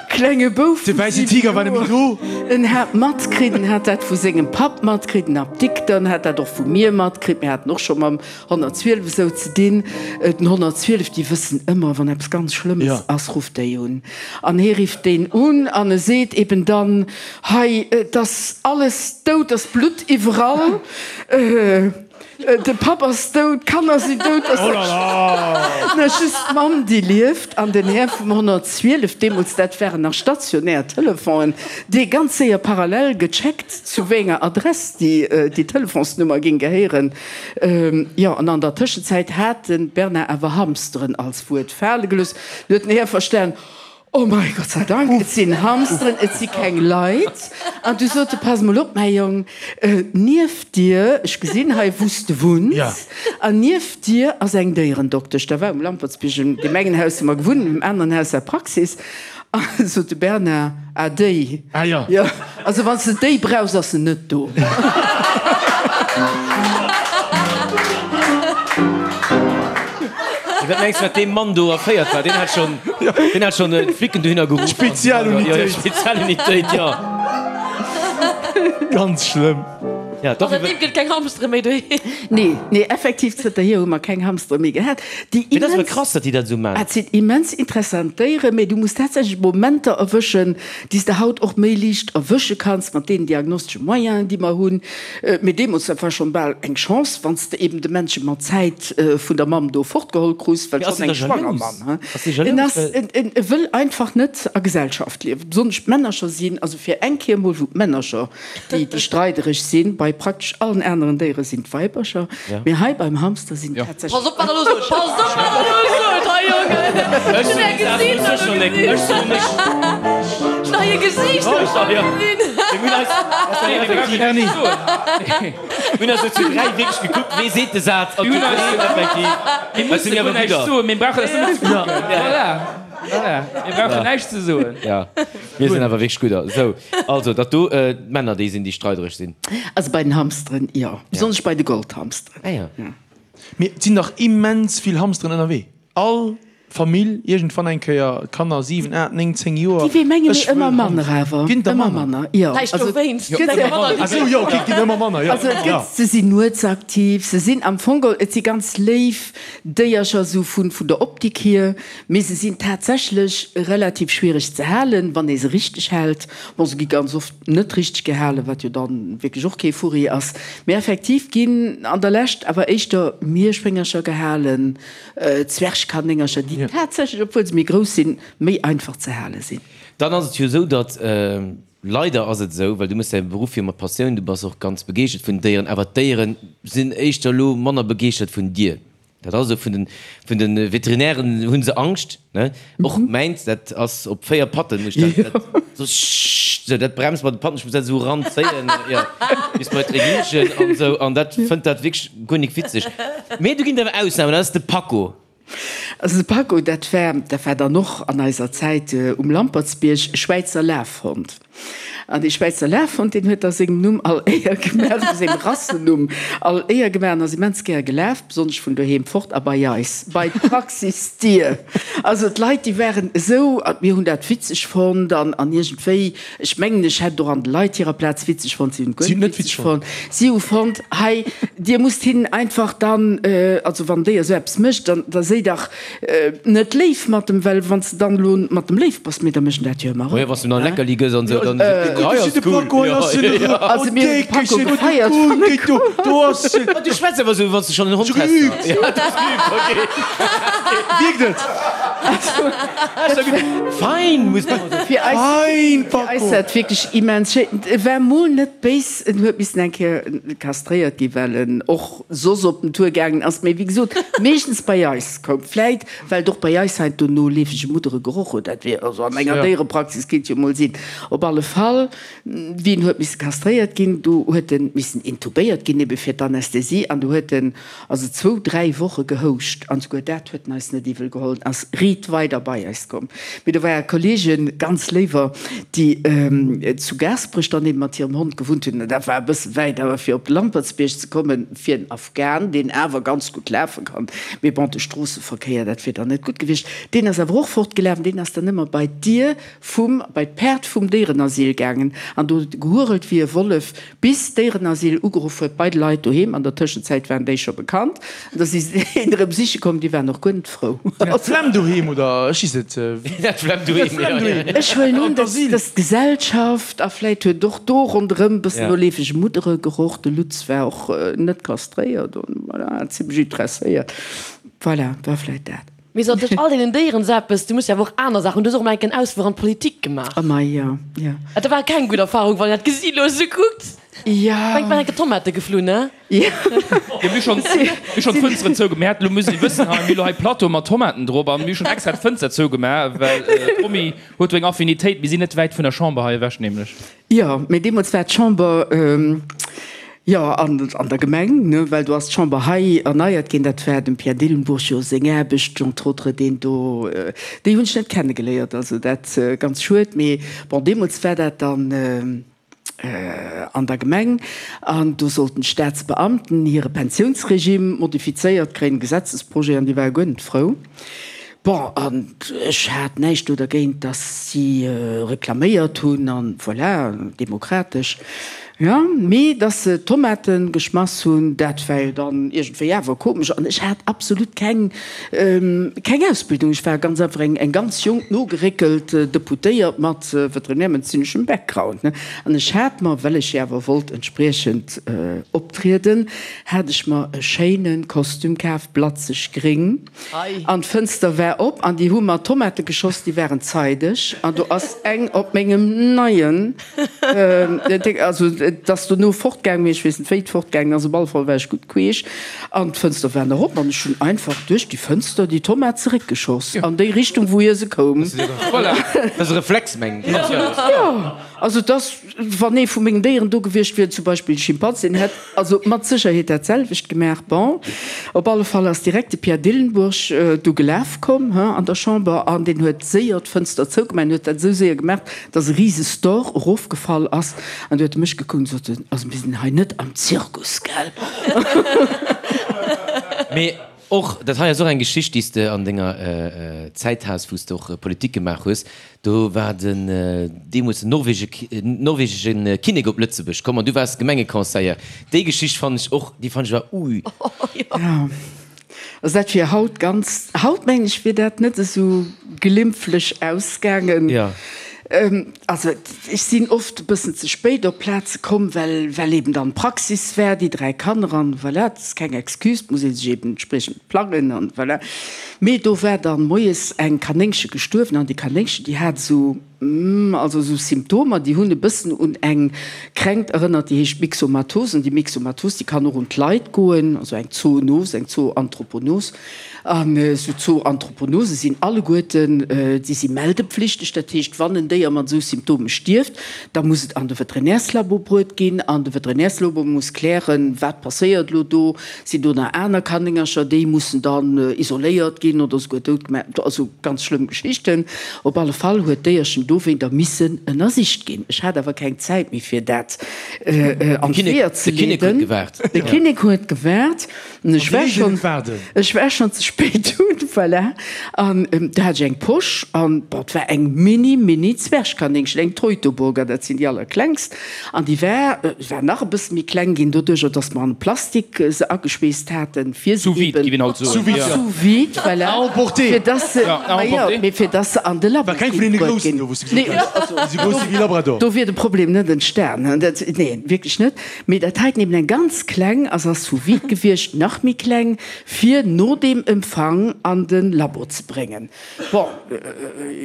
D: Klenge Bouf
C: De wäissen Tiger war nemmi do.
D: En hat matkritt, en hat dat vu sengem Papp matkritt, den Apdikter, en hat dat och vu mir matkritt, mir haten och scho mam 112 esou ze dinn. Den 112, déi wëssen ëmmer, wann eppes ganz Schlëmmes ass, rufft déi un. An hie rifft deen un an e seet eben dann, Hei, et ass alles dout, et ass Blutt iwwerall, de Papp ass dout, d'Kanner sinn dout, et ass just d'Mamm, déi lieft. An den Här vum 112, deemools, dat waren nach stationär Telefonen, dee ganz séier parallel gecheckt, zu wéi enger Adress déi Telefonsnummer géing gehéieren. Jo, an an der Tëschenzäit hat de Bernard awer Hamsteren als Wuert fale gelooss. Du huet den Här verstan. Oh mei Gott sei Dank, et sinn Hamsteren, et si keng Leit. An du sot e, Pass mol op, mäi Jong, nieft dir, ech gesinn hei, wou s de wunns, an nieft dir ass eng Déierendoktesch. Da war um Lampertsbierg, an deem engen Haus hu mer gewunnt, an deem aneren Haus war d'Praxis. An du sot de Bernard, Ah, déi.
C: Ah jo.
D: Jo, also wann s de déi brauchs, ass se net do.
B: Wat mengs de, wat dee Mann do erféiert war? Deen hat schonn, deen hat schonn d'Flicken dohinner geruff.
C: Spezialunitéit.
B: Spezialunitéit, jo.
C: Ganz schlëmm.
B: Ja,
E: doch. Seitdeem gëtt keng Hamstere méi doheem.
D: Nee, nee, effektiv, zënterhier hu mer keng Hamstere méi gehat. Déi
B: Mee dat ass awer
D: immens,
B: krass, datt déi dat esou man.
D: Et sinn immens interessant Déieren, mee du muss tatsächlech Momenter erwëschen, déi s de haut och méi liicht erwësche kanns mat deenen diagnostesche Moyenen, déi mer hunn. Mee deemools, dat war schonn bal eng Chance, wann s de eben de Männche mat Zäit vun der Mamm do fortgeholl krus, well
B: Mee ass
D: schonn
B: en
D: eng
B: da
D: schwanger
B: jalous?
D: Mamm, hein.
B: Ass dee
D: En
B: jalous,
D: ass,
B: well.
D: en, en, e wëll einfach net a Gesellschaft liewen, besonnesch d'Männercher sinn, also fir eng Kéier emol, wou d'Männercher déi déi streidereg sinn. Bei praktesch allen aneren Déiere sinn d'Weibercher, mee hei beim Hamster sinn tatsächlech.
E: Pass op wat der elo sot! Pass op wat der elo sot hei Jongen! Ech hunn är Gesiichter elo gesinn! Ech hunn hei e Gesiicht elo scho gesinn!
C: Erni!
B: Mir hunn eis elo zu 3 wierklech gekuckt, wee seet de Saz an zu 3 effektiv.
F: Mir musse guer näischt soen, mir brauchen eis nëmmen ze kucken. Voilà, voilà, mir brauchen näischt ze soen.
B: Ja, mir sinn awer wierklech gudder. Sou. Also, datt do d'Männer déi sinn, déi streidereg sinn.
D: Also bei den Hamsteren, jo. Besonnesch bei de Goldhamsteren.
B: Ah jo.
C: Mee et sinn dach immens vill Hamsteren ënnerwee. All Famill iergendwann eng Kéier, Kanner 7, 8, 9, 10 Joer,
D: Déi wéi menge
C: ech
D: mir
C: wëll
D: ëmmer manner
C: Hamster.
D: awer.
C: Ginn der
D: Ëmmer
C: manner?
D: manner, jo.
E: Vläicht
D: Also
E: dowéinst.
D: et gëtt
E: Ginn ëmmer manner,
C: Ah sou, jo, ok, et ginn ëmmer manner, jo.
D: Also et gëtt, se sinn nuetsaktiv, se sinn am Fong geholl, et si ganz léif Déiercher sou vun vun der Optik hier, mee se sinn tatsächlech relativ schwiereg ze halen, wann ee se richteg hält. Bon, se gi ganz oft net richteg gehalen, wat jo dann wierklech och kee Furri ass. Mee effektiv ginn an der Lescht awer éischter Mierschwéngercher gehalen, Zwergkanéngercher, déi tatsächlech, obwuel se méi grouss sinn, méi einfach ze hale sinn.
B: Dann ass et jo esou, datt, leider ass et esou, well du méchs däi Beruff jo mat Passioun, du bass och ganz begeeschtert vun den Déieren, awer d'Déiere sinn éischter elo manner begeeschtert vun dir. Dat ass esou, vun den, vun den Veterinären hu se Angscht, ne? Och mäins, dat ass op 4 Patten, muss ech dat, dat so scht, sou, dat bremst mat de Patten, ech muss dat esou eranzéien, jo, bis bei d'Regierchen an esou, an dat fënnt dat wierklech guer nik witzeg. Mee do ginn et awer Ausnamen, dat ass de Paco.
D: Also de Paco, dat war, dat war dann och an eiser Zäit um Lampertsbierg e Schwäizer Lafhond. An dee Schwäizer Lafhond, deen huet da sengem Numm all Éier gemaach, also sengem Rassenumm all Éier gemaach an ass immens gär gelaf, besonnesch vun doheem fort a bei eis, bei d'Praxisdier. Also d'Leit, déi waren esou, a mir hunn dat witzeg fonnt an, an iergendwéi, ech mengen, ech hätt et och an de Leit hirer Plaz witzeg fonnt, si hunn et guer net witzeg fonnt. Si hu fonnt, hei, dir musst hinnen einfach dann, also wann déi esou eppes mécht, dann, da séi dach, Net léif mat dem, well wann s de dann elo mat dem léif bass, mee da mécht en dat jo ëmmer
B: erëm. Wann s de em dann e Leckerli gëss an esou, dann seet en, hei ass cool.
D: Also mir hunn de Paco gefeiert, wann e koum.
B: Du schwätz awer esou, wann s de schonn en Hond häss. Ja, du hues geübt, ok.
C: Wierkt et?
B: Fein, muss de.
D: Fir eis war et wierklech immens schéin. E war mol net béis, en huet missen eng Kéier kastréiert ginn, well en och soss op den Tour gaangen ass, mee wéi gesot, meeschtens bei eis koum. Vläit, well et och bei eis heiansdo no leefege Muddere geroch huet, dat wier also an enger Déierepraxis, kéint jo mol sinn. Op alle Fall, wéi en huet misse kastréiert ginn, do huet en missen intubéiert ginn, ebe fir d'Anästhesie, an do huet en also zwou, dräi Woche gehouscht, an souguer dat huet en eis net iwwel geholl, en ass riit weider bei eis komm. Mee do ware Kollegen, ganz léiwer, déi zu Gaasperech dann eben mat hirem Hond gewunnt hunn. Dat war e bësse wäit, awer fir op de Lampertsbierg ze kommen, fir en Afghan, deen awer ganz gutt lafe kann, mee bon, de Stroosseverkéier, dat wier dann net gutt gewiescht, deen ass awer och fortgelaf an deen ass dann ëmmer bei d'Dier vum, bei d'Paart vum Déierenasyl gaangen an do huet e gehurelt wéi e Wollef, bis d'Déierenasyl ugeruff huet bei de Leit doheem. An der Tëschenzäit waren déi scho bekannt an da si se een erëm siche komm, déi waren och guer net frou.
C: Sinn dat d'Flemm doheem oder ech weess net?
B: Dat d'Flemm doheem, jo.
D: Ech huelen un, dass d'Gesellschaft, a vläit huet och do ronderëm e bëssen no leefege Muddere geroch, de Lutz war och net kastréiert an voilà, zimmlech interesséiert, voilà, war vläit dat.
E: Mee sou tëscht all deenen Déieren sou eppes, du muss jo awer och aner Saachen, du hues och emol enk en Ausfluch an d'Politik gemaach.
D: Oh mei, jo, jo.
E: Dat war keng gutt Erfahrung, wann een dat gesi lo sou kuckt.
D: Ja.
E: Mengt war enke Tomate geflunn, ne?
D: Ja.
F: Jo, mir hu schonn, mir hu schonn d'Fënsteren zougemaach. Mir haten, elo muss ee wëssen, hei, mir hu lo hei Plateau mat Tomaten drop an mir hu schonn extra d'Fënster zougemaach, well d'Romy huet do eng Affinitéit. Mir sinn net wäit vun der Chamber hei ewech nämlech.
D: Jo, mee deemools war d'Chamber, jo, an an der Gemeng, ne, well do ass d'Chamber hei erneiert ginn. Dat war dem Pierre Dillenburg jo seng Aarbecht, entre autres, deen do, déi hunn ech net kennegeléiert, also dat ganz schued. Mee bon, deemools war dat dann an der Gemeng an do sollten d'Staatsbeamten hire Pensiounsregime modifizéiert kréien, Gesetzesprojet, an déi ware guer net frou. Bon, an ech hat näischt do dergéint, datt si reklaméiert hunn, an voilà, demokratesch, jo. Mee datt se Tomate geschmass hunn, dat war jo dann iergendwéi awer komesch. An ech hat absolut keng, keng Ausbildung. Ech war ganz einfach eng, eng ganz jonk, nogeréckelt Deputéiert mat veterinärmedezineschem Background, ne. An ech hat mer, well ech jo awer wollt entspriechend optrieden, hat ech mer e schéine Kostüm kaf, blatzeg gréng. An d'Fënster war op an déi hu mer Tomate geschoss, déi waren zeideg an do ass eng op mengem neien, also et ass dono fortgaang, mee ech weess net wéi et fortgaangen ass, op alle Fall war ech gutt queesch an d'Fënster war nach op an ech hunn einfach duerch déi Fënster déi Tomat zeréckgeschoss an déi Richtung wou hie se koum.
B: Voilà, dat ass e Reflex mengen ech.
D: Jo, also et ass, wann ee vu mengen Déieren do gewiescht wier, zum Beispill e Schimpans, deen hätt Also mat Sécherheet dat selwecht gemaach. Bon, op alle Fall ass direkt de Pierre Dillenburg du gelaf komm, he, an der Chamber an deen huet séier d'Fënster zougemaach. En huet dat esou séier gemaach, dass e rise Store erofgefall ass. An du huet e mech gekuckt an sot en, Also mir sinn hei net am Zirkus, gell?
B: Mee Och, dat hei ass och eng Geschicht, déi s de an denger Zäit has, wou s de och Politik gemaach hues. Do war den deemools den norwegesche Kinnek op Lëtzebuerg komm an du waars Gemengeconseiller. Déi Geschicht fannen ech och, déi fannen ech awer, ui.
D: Jo, also dat wier haut ganz, haut mengen ech wier dat net esou glimpflech ausgaangen.
B: Jo.
D: Also ech sinn oft e bëssen ze spéit op Plaze komm, well well eben dann Praxis war, déi 3 Kanner an voilà, dat ass keng Excuse, et muss ee sech eben entspriechend plangen an voilà. Mee do war dann moies eng Kanéngche gestuerwen an déi Kanéngchen, déi hat esou, also esou Symptomer, déi hunn e bëssen un eng Kränkt erënnert, déi heescht Myxomatose an déi Myxomatose, déi kann och un d'Leit goen, also eng Zoonos, eng Zooanthroponos. An esou Zooanthroponose sinn alleguerten, déi si meldepflichteg. Dat heescht, wann en Déier mat esou Symptome stierft, da muss et an de Veterinärslabo bruet ginn an de Veterinärslabo muss klären, wat passéiert elo do, sinn do nach aner Kanéngercher, déi mussen dann isoléiert ginn oder esouguer dout gemaach, also ganz schlëmm Geschichten. Op alle Fall huet d'Déierchen dowéinter missen ënnersicht ginn. Ech hat awer keng Zäit méi fir dat an d'Weeër ze leeden. De Kinnek huet gewaart. An ech war schon, ech war schon ze spéit un, voilà. An do hat ech eng Posch an, bon, et war eng mini, mini Zwergkanéngchen, eng Teutoburger, dat sinn déi allerklengst. An déi war, war nach e bësse méi kleng ginn, doduercher, dass mer an Plastik se ageschweesst haten, fir se
F: Sous vide,
D: eben,
F: géif een haut soen.
C: Sous vide, ja.
D: Sous vide, voilà.
C: À emporter.
D: Fir dass se,
F: Ja, à
D: ma jo,
F: emporter.
D: mee fir dass se an de Labo
C: War keng vun deene
D: kinnt bruet
C: groussen
D: ginn.
C: do, wou s de gesot
D: Nee,
C: hues,
D: also,
C: déi sou grouss si wéi Labrador.
D: do wier de Problem net entstan, dat, nee, wierklech net. Mee dat heiten eben eng ganz kleng ass ass sous vide gewiescht, nach méi kleng, fir no deem Empfang an de Labo ze bréngen. Bon,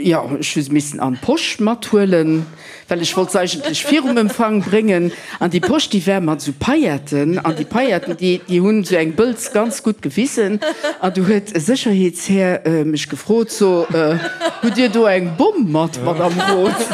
D: jo, ech hu se missen an d'Posch mathuelen, well ech wollt se eigentlech virum Empfang bréngen. An déi Posch, déi war mat esou Pailletten, an déi Pailletten, déi, déi hunn esou eng Bëlz ganz gutt gewisen. An du huet e Sécherheetshär mech gefrot, So, hutt Dir do eng Bomm mat, Madame Roth?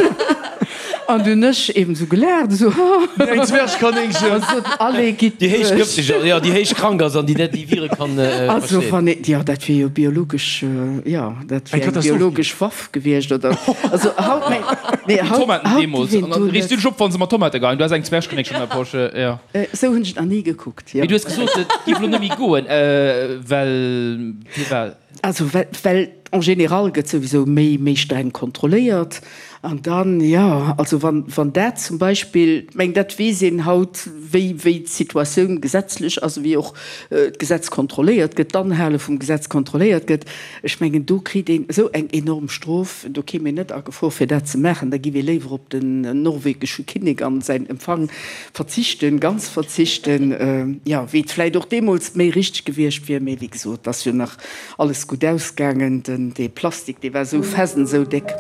D: An du hunn ech eben esou gelaacht, esou, haha.
C: Eng Zwergkanéngchen.
D: An sot, Allez, gitt
B: Déi héich
D: duerch.
B: gëfteg ass, jo, déi héich krank ass an déi net déi Vire kann
D: Also
B: verstehen.
D: wann een, jo, dat wier jo biologesch, jo, dat
C: Eng
D: wier eng
C: Katastroph ginn.
D: biologesch Waff gewiescht, oder? Also haut, mä, nee, haut,
F: Tomaten
D: haut
F: deemools.
D: géif een
F: An dann
D: do
F: riichs du
D: net.
F: dech op, wann se mat Tomate geheien. Du has eng Zwergkanéngchen an der Posch, jo.
D: Esou hunn ech et nach ni gekuckt, jo.
F: Mee du hues gesot, et géif elo net méi goen, well firwat?
D: Also well, well en général gëtt souwisou méi, méi streng kontrolléiert. An dann, jo, also wann, wann dat zum Beispill, ech mengen, dat weess een haut, wéi, wéi d'Situatioun gesetzlech ass, wéi och d'Gesetz kontrolléiert gëtt, d'Anhale vum Gesetz kontrolléiert gëtt. Ech mengen, do kritt een esou eng enorm Strof, do kéim een net a Gefor fir dat ze maachen. Da giff ee léiwer op den norwegesche Kinnek an säin Empfang verzichten, ganz verzichten, jo, wéi et vläicht och deemools méi richteg gewiescht wier. Mee wéi gesot, et ass jo nach alles gutt ausgaangen. De. den dee Plastik, dee war esou fest an esou déck.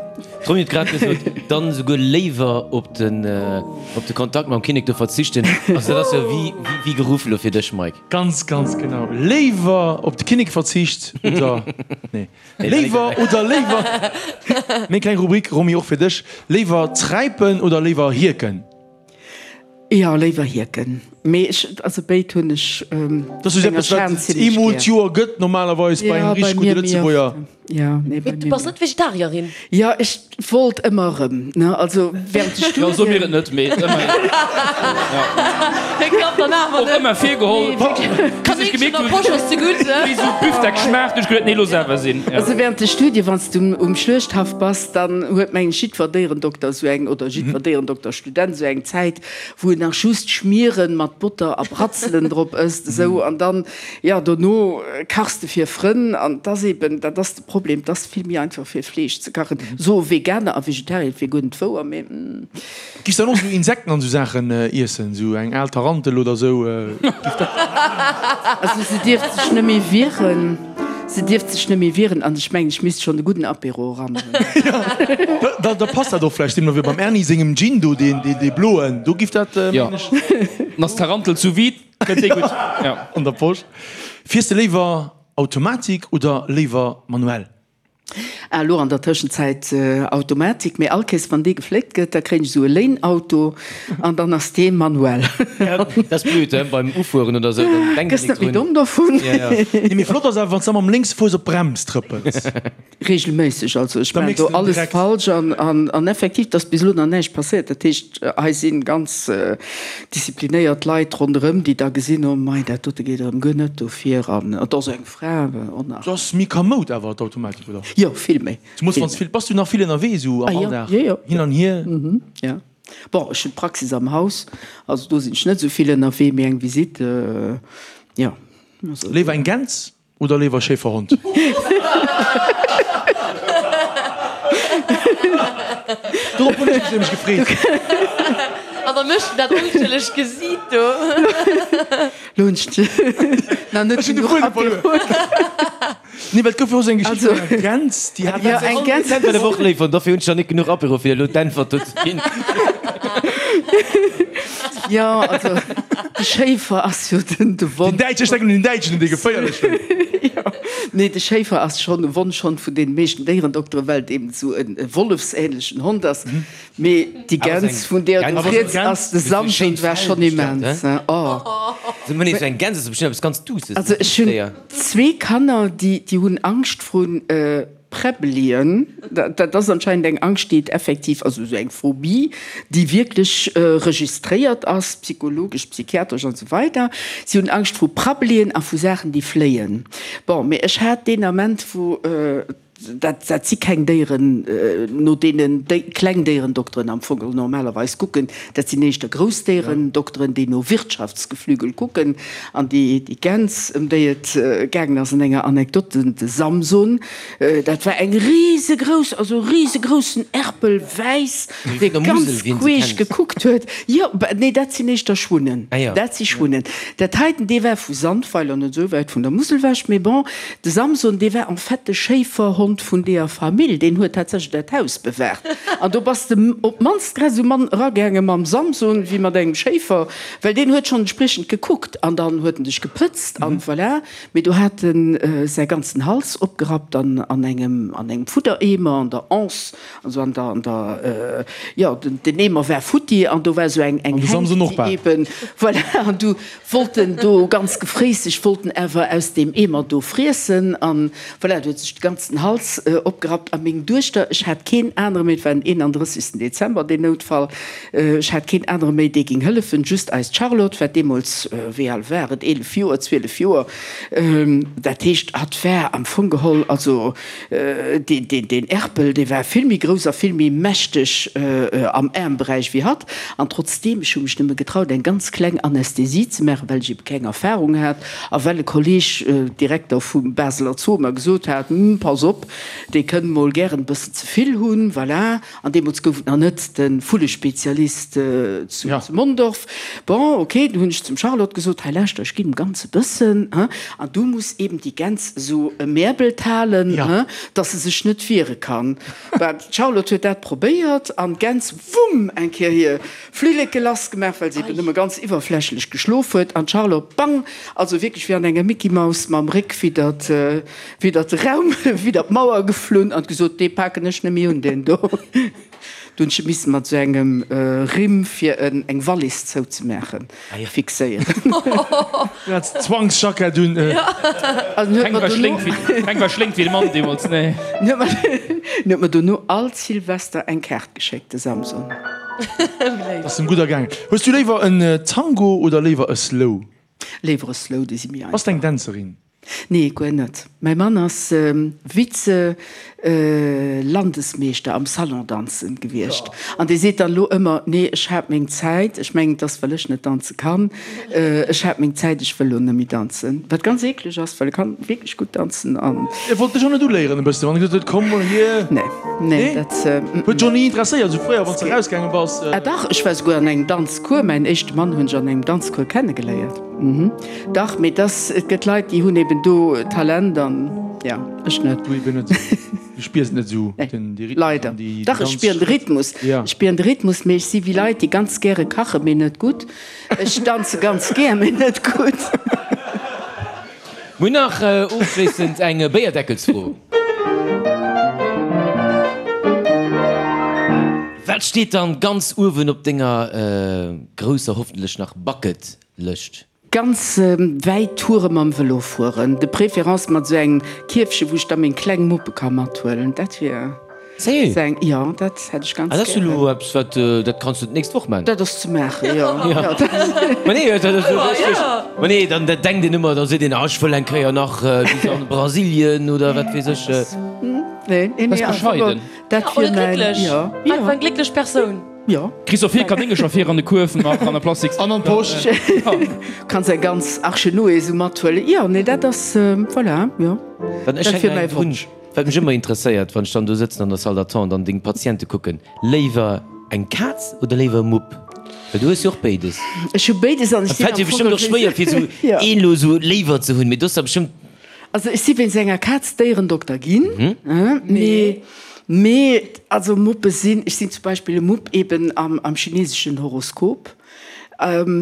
B: D'Romy huet grad gesot, dann esouguer léiwer op den op de Kontakt mam Kinnek do verzichten. Also dat ass jo wéi wéi geruff elo fir dech, Mike.
C: Ganz, ganz genau. Léiwer op de Kinnek verzicht oder nee. Léiwer oder léiwer. Meng kleng Rubrik, Romy, och fir dech, Léiwer träipen oder léiwer hierken?
D: Jo, léiwer hierken. Mee ech, also béid hunn ech.
C: Dat ass jo eppes, wat et eemol d'Joer gëtt normalerweis bei engem richteg gudde Lëtzebuerger.
D: Jo, nee, bei
E: mir. Du bass net Vegetarierin?
D: Jo, ech wollt ëmmer erëm, ne, also während de
F: Studien. Jo, so mir et net, mee ëmmerhin.
E: Hie klappt dann awer
F: net. Och ëmmer virgeholl. Bis ech gemierkt hunn, wéi sou Büfdeck schmaacht, hunn ech geduet, nee, looss awer sinn.
D: Also während de Studien, wann s du um Schluechthaff bass, dann huet mengen ech jiddwer Déierendokter esou eng, oder jiddwer Déierendokterstudent esou eng Zäit, wou en nach just Schmieren mat Botter a Bratzelen drop ësst, esou, an dann, jo, dono kachs de fir Frënn, an 't ass eben, dat ass de Problem, 't ass vill méi einfach fir Fleesch ze kachen, soe Veganer a Vegetarier, et wier guer net wouer, mee.
C: Giffs dann och esou Insekten an esou Saachen iessen, esou eng al Tarantel oder esou, giff dat.
D: Also se dierft sech net méi wieren. Se dierft sech net méi wieren an ech mengen, ech misst schonn e gudden Apéro eran hunn.
C: Da, da passt dat och vläicht deemno wéi beim Erny sengem Gin do, deen, deen, dee bloen, do giff dat,
F: Jo,
C: mengen ech.
F: Dann ass d'Tarantel sous vide, kënnt déi gutt. Jo.
C: An der Posch. Fiers de léiwer Automatik oder léiwer manuell?
D: Ah, elo an der Tëschenzäit Automatik, mee all Kéiers wann dee gefléckt gëtt, da kréien ech esou e Léinauto an dann ass dee manuell.
B: Dat ass blöd, he, beim Ufueren oder esou, dann denkt
D: Gëss
B: een
D: net
B: nik
D: méi
B: drun.
D: domm dovun.
B: Ja, ja.
C: Nee, mee flott ass awer, wann s de da mam lénkse Fouss op d'Brems trëppels.
D: Regelméisseg, also ech
C: Da
D: maachen
C: méchs
D: do
C: de en
D: alles
C: direkt.
D: falsch an, an, an effektiv, et ass bis elo nach näischt passéiert. Dat heescht, hei si ganz disziplinéiert Leit ronderëm, déi da gesinn, oh mei, dat dote geet erëm guer net dofir an et ass eng Fra och nach.
C: Ass méi kamoud awer d'Automatik, oder?
D: Jo, vill méi.
C: Du muss wanns vill, bass du nach vill ënnerwee sou am Alldag?
D: Jo, jo.
C: Hin an hier?
D: Mhm, ja. Bon, ech hunn d'Praxis am Haus, also do sinn ech net sou vill ënnerwee, mee eng Visite, jo.
C: Léiwer eng Gäns oder léiwer Schäferhond? Dorop hunn ech mech nämlech gefreet.
E: An da mécht en dat onschëlleg Gesiit do.
D: Lo hunn ech nach net
C: Ech hunn de
D: genuch
C: Fuedem verluer.
D: Apéro.
C: Nee, well et gouf jo och esou eng Geschicht vun enger Gäns, déi hat.
D: Jo, eng Gäns.
B: Dat war och léif, an dofir hunn ech nach net genuch Apéro, fir elo d'Äntwert do ze ginn.
D: Jo, also de Schéifer ass jo den de Won.
C: Den Däitschen, ech denken un den Däitschen, un dee geféierlechen.
D: Jo, nee, de Schéifer ass schonn e Wonschhond vun deene meeschten Déierendokteren, well et eben esou e wollefsähnlechen Hond ass. Mee déi Gäns vun deer du rieds ass de Samson war schonn immens oh.
B: Eng Gäns ass bestimmt eppes ganz Duusses.
D: Also ech hunn zwee Kanner déi déi hunn Angscht vrun Präbbelien. Dat ass anscheinend eng Angscht déi et effektiv, also esou eng Phobie déi wierklech registréiert ass, psychologesch, psychiatresch an esou weider. Si hunn Angscht vru Prabbelien a vu Saachen déi fléien. Bon, mee ech hat deen Ament wou. Dat, dat si keng Déieren, no deenen kleng Déierendokteren am Fong normalerweis kucken. Dat sinn éischter grouss Déierendokteren, déi no Wirtschaftsgeflügel kucken. An déi, déi Gäns, ëm déi et gaangen ass an enger Anekdot, den, de Samson, dat war eng risegrouss, also e risegroussen Erpel, wäiss, dee ganz queesch gekuckt huet. Jo, nee, dat sinn éischter Schwunnen. Dat si Schwunnen. Dat heiten, dee war vu Sandweiler, net esou wäit vun der Musel ewech, mee bon. De Samson, dee war en fait de Schéiferhond vun deeër Famill, deen huet tatsächlech dat Haus bewaacht. An do bass de op d'mannst grad esou mann eragaange mam Samson wéi mat engem Schéifer, well deen huet schonn entspriechend gekuckt an dann huet en dech gepëtzt an voilà. Mee do hat en säi ganzen Hals opgerappt an an engem an engem Fuddereemer an der Anse, also an der an der jo, den Eemer war futti an do war esou eng eng Hänk, déi eben voilà an du Wollten do ganz gefréisseg, wollten awer aus deem Eemer do friessen an voilà, do huet sech de ganzen Hals opgerappt. A meng Duechter, ech hat keen anere méi, et war den 31. Dezember deen Noutfall, ech hat keen anere méi, dee ging hëllefen, just eist Charlotte, wat deemools, wéi al war et, 11 Joer, 12 Joer, dat heescht, hatt war am Fong geholl, also Deen Erpel, dee war vill méi grouss a vill méi mächteg am Aarmberäich wéi hatt. An trotzdeem, ech hu mech nëmme getraut, eng ganz kleng Anästhesie ze maachen, well ech ebe keng Erfahrung hat a well e Kolleg, Direkter vum Baseler Zoo, mer gesot hat, Hm, pass op. Mupp, dee kënn mol gären e bëssen ze vill hunn, voilà. An deemools gouf et nach net de Vullespezialist zu Mondorf. Bon, ok, du hunn ech zum Charlotte gesot, hei lauschter, ech ginn em ganz e bëssen, hein, an du muss eben déi Gäns esou emäerbelt halen, hein, dass se sech net wiere kann. Bah, d'Charlotte huet dat probéiert an d'Gäns, wumm, eng Kéier hir Flilleke lassgemaach, well se eben nëmme ganz iwwerflächlech geschlof huet, an d'Charlotte, bang, also wierklech wéi an enger Mickey-Maus mam Réck widdert Widder de Raum, widder d'Mauer geflunn an gesot, Dee paken ech net méi un, deen do. Du hunn ech e missen mat esou engem Rimm, fir en eng Wallis zouzemaachen, fixéieren.
C: Du hat d'Zwangsjackett un.
F: Keng war schlénk wéi, keng war schlénk wéi de Mann deemools, nee.
D: En huet mer dono all Silvester eng Kaart geschéckt, de Samson.
C: Ass em gutt ergaangen. Hues du léiwer en Tango oder léiwer e Slow?
D: Léiwer e Slow, déi si méi einfach.
C: Bass de eng Dänzerin?
D: Nee, guer net. Mäi Mann ass Vize-Landesmeeschter am Salondanzen gewiescht. An dee seet dann elo ëmmer, Nee, ech hat meng Zäit. Ech mengen, et ass, well ech net danze kann. Ech hat meng Zäit, ech wëll elo net méi danzen. Wat ganz eekleg ass, well e kann wierklech gutt danzen an.
C: E wollt dech och net uléieren e bëssen, wann e gesot huet, Komm mol hier?
D: Nee, nee, dat.
C: Huet dech och ni interesséiert, esou fréier, wann s de erausgaange bass?
D: Ah dach, ech war souguer an engem Danzcours. Mäin éischte Mann hunn ech an engem Danzcours kennegeléiert. Dach, mee dass, et gëtt Leit, déi hunn eben do Talent an ja, ech net.
C: Du eben net. Du spiers et net esou, den, dee Rhythmus
D: Leider.
C: an déi
D: Dach, ech spieren de Rhythmus.
C: Ja.
D: Ech spieren de Rhythmus, mee ech si wéi Leit, déi ganz gäre kachen, mee net gutt. Ech danze ganz gär, mee net gutt.
B: Mir hunn nach ofschléissend eng Béierdeckelsfro. Wat steet dann ganz uewen op denger grousser, hoffentlech nach, Bucket Lëscht?
D: Ganz wäit Toure mam Vëlo fueren, de préférence mat esou engem Kierfche wou ech da meng kleng Muppe ka mathuelen, dat wier
B: Sérieux?
D: esou eng, jo dat hätt ech ganz
B: Ah, dat ass jo
D: gären.
B: elo eppes wat, dat kanns du d'nächst Woch man.
D: Dat ass ze maachen, jo.
B: Ma nee, dat ass jo richteg. Ma nee, dann dat denkt een ëmmer, da seet een, ah ech wëll eng Kéier nach bis an Brasilien oder wat weess ech.
D: Nee, nee,
F: Bass bescheiden.
D: Dat wier mäin, jo.
E: Einfach eng glécklech Persoun.
D: Jo.
F: Kriss och vill Kanéngercher fir an de Kuerf nach an der Plastiks.
C: An an d'Posch.
D: Kanns eng ganz Arche Noé esou mathuelen. Jo, nee, dat ass, voilà, jo.
B: Dann ech
D: Dat wier
B: hänken
D: mäi
B: eng drun,
D: Wonsch.
B: wat mech ëmmer interesséiert, wann ech dann do sëtzen an der Salle d'attente an deng Patiente kucken, léiwer eng Kaz oder léiwer e Mupp? Well du hues jo och béides.
D: Ech hu béides an ech
B: Et
D: sinn
B: fält
D: am
B: dir
D: Fong
B: bestëmmt och schwéier fir esou
D: Jo.
B: een elo esou léiwer ze hunn, mee du hues der bestëmmt.
D: Also ech si wéinst enger Kaz Déierendokter ginn, mee mee also Muppe sinn, ech sinn zum Beispill e Mupp eben am am chineseschen Horoskop,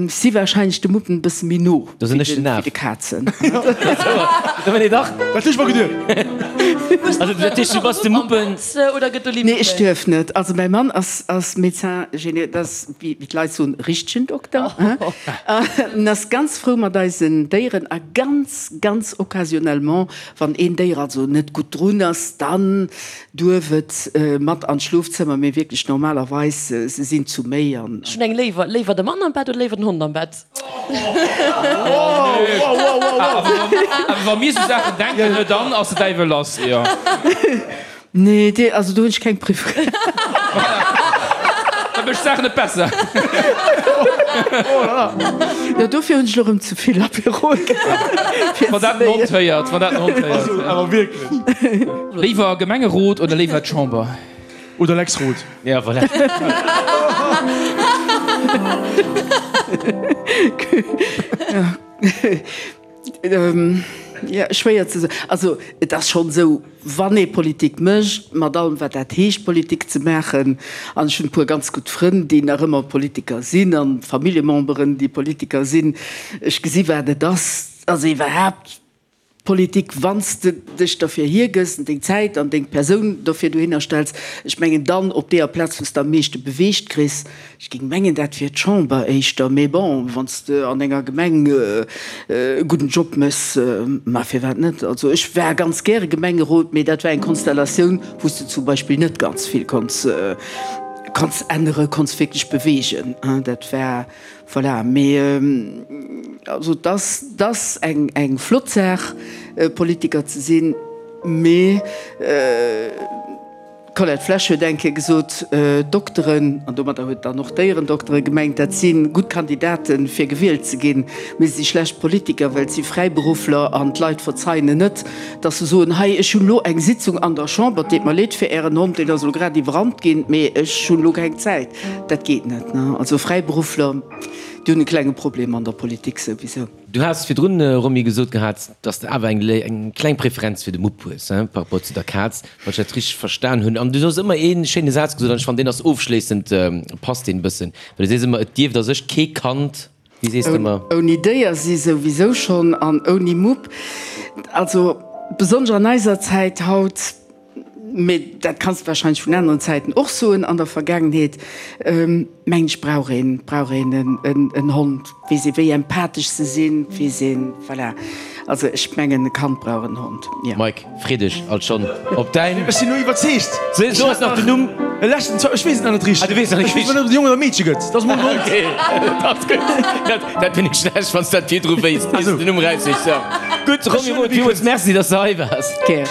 D: si wahrscheinlech de Muppen e bësse méi no
B: Do sinn ech den
D: wéi
B: Af.
D: de Kazen.
B: Nee dach.
C: Dat hu ech mer geduecht.
B: Also dat heescht du bass de Muppen.
E: Oder gëtt do
D: Nee ech duerf net. Also mäi Mann ass ass Médecin géné, dat ass wéi d'Leit soen richtegen Dokter, en ass ganz frou mat eisen Déieren a ganz Ganz occasionnellement, wann een Déier also net gutt drun ass, dann duerf et mat an d'Schlofzëmmer, mee wierklech normalerweis, se sinn zu méi an.
E: Ech hunn eng léiwer, léiwer de Mann am Bett oder léiwer den Hond am Bett?
F: Awer wa mir sou Saachen denken, ne, dann ass de Däiwel lass, jo.
D: Nee, dee, also do hunn ech keng Preferenz.
F: Dat mécht d'Saach net besser.
D: Jo, dofir hunn ech elo rëm ze vill Apérol gehat.
F: Wann dat den Hond héiert, wann dat den Hond héiert.
C: Also awer wierklech.
F: Léiwer Gemengerot oder léiwer d'Chamber?
C: Oder Lex Roth.
B: Ja, voilà.
D: Jo, schwéier ze soen. Also et ass schonn esou, wann ee Politik mécht, mat allem wat dat heescht Politik ze maachen, an ech hunn e puer ganz gutt Frënn, déi nach ëmmer Politiker sinn, an Familljememberen, déi Politiker sinn, ech gesi wat et ass, also iwwerhaapt Politik, wann s de dech derfir hiergëss an deng Zäit an deng Persoun dofir dohinner stells, ech mengen dann op deeër Plaz, wou s de am meeschte beweegt kriss, Ech géing mengen, dat wier d'Chamber éischter, mee bon, wann s de an enger Gemeng e gudden Job méchs, ma firwat net? Also ech war ganz gäre Gemengerot, mee dat war eng Konstellatioun, wou s de zum Beispill net ganz vill konns konns änneren, konns wierklech beweegen. Dat war, voilà. Mee also et ass, et ass eng eng flott Saach, Politiker ze sinn, mee. D'Colette Flesch huet eng Kéier gesot, Dokteren, an domadder huet dann och Déierendoktere gemengt, dat si gutt Kandidaten, fir gewielt ze ginn, mee se si schlecht Politiker, well et si Fräiberuffler an d'Leit verzeien en net, datt se soen, hei, ech hunn elo eng Sitzung an der Chamber, et deet mer leed fir Ären Hond, deen ass elo grad iwwerrannt ginn, mee ech hunn elo keng Zäit. Dat geet net. Also Fräiberuffler, déi hunn e klenge Problem an der Politik souwisou.
B: Du has virdrun, Romy, gesot gehat, dass de awer eng kleng Preferenz fir de Mupp hues, par rapport zu der Kaz, wann ech dat richteg verstan hunn. An du hues ëmmer ee schéine Saz gesot, an ech fannen, deen ass ofschléissend, passt deen e bëssen, well du sees ëmmer, et dierft a sech kee Kand, wéi sees de ëmmer?
D: Ouni Déier si souwisou schonn an ouni Mupp. Also besonnesch an eiser Zäit haut. Mee dat kanns de wahrscheinlech vun aneren Zäiten och soen an der Vergaangenheet, mengen ech, brauch een, brauch een en Hond. Weess ee wéi empathesch se sinn, weess een, voilà. Also ech mengen e Kand brauch en Hond, jo.
B: Mike, free dech alt schonn op däin.
C: Ech sinn elo iwwerzeegt.
B: So ass nach den Numm.
C: E leschten, ech weess et nach net richteg.
B: Ah, du weess nach net
C: richteg. Ech weess net, ob et e Jong oder e Meedche gëtt. Dat ass mol en Hond.
B: Okay, dat ass gutt. Dat, dat wier net schlecht, wann s dat virdru wéisst, ier s de den Numm eraussichs. Jo. Gutt, Romy Roth, villmools Merci, dass de hei waars.
D: Gär.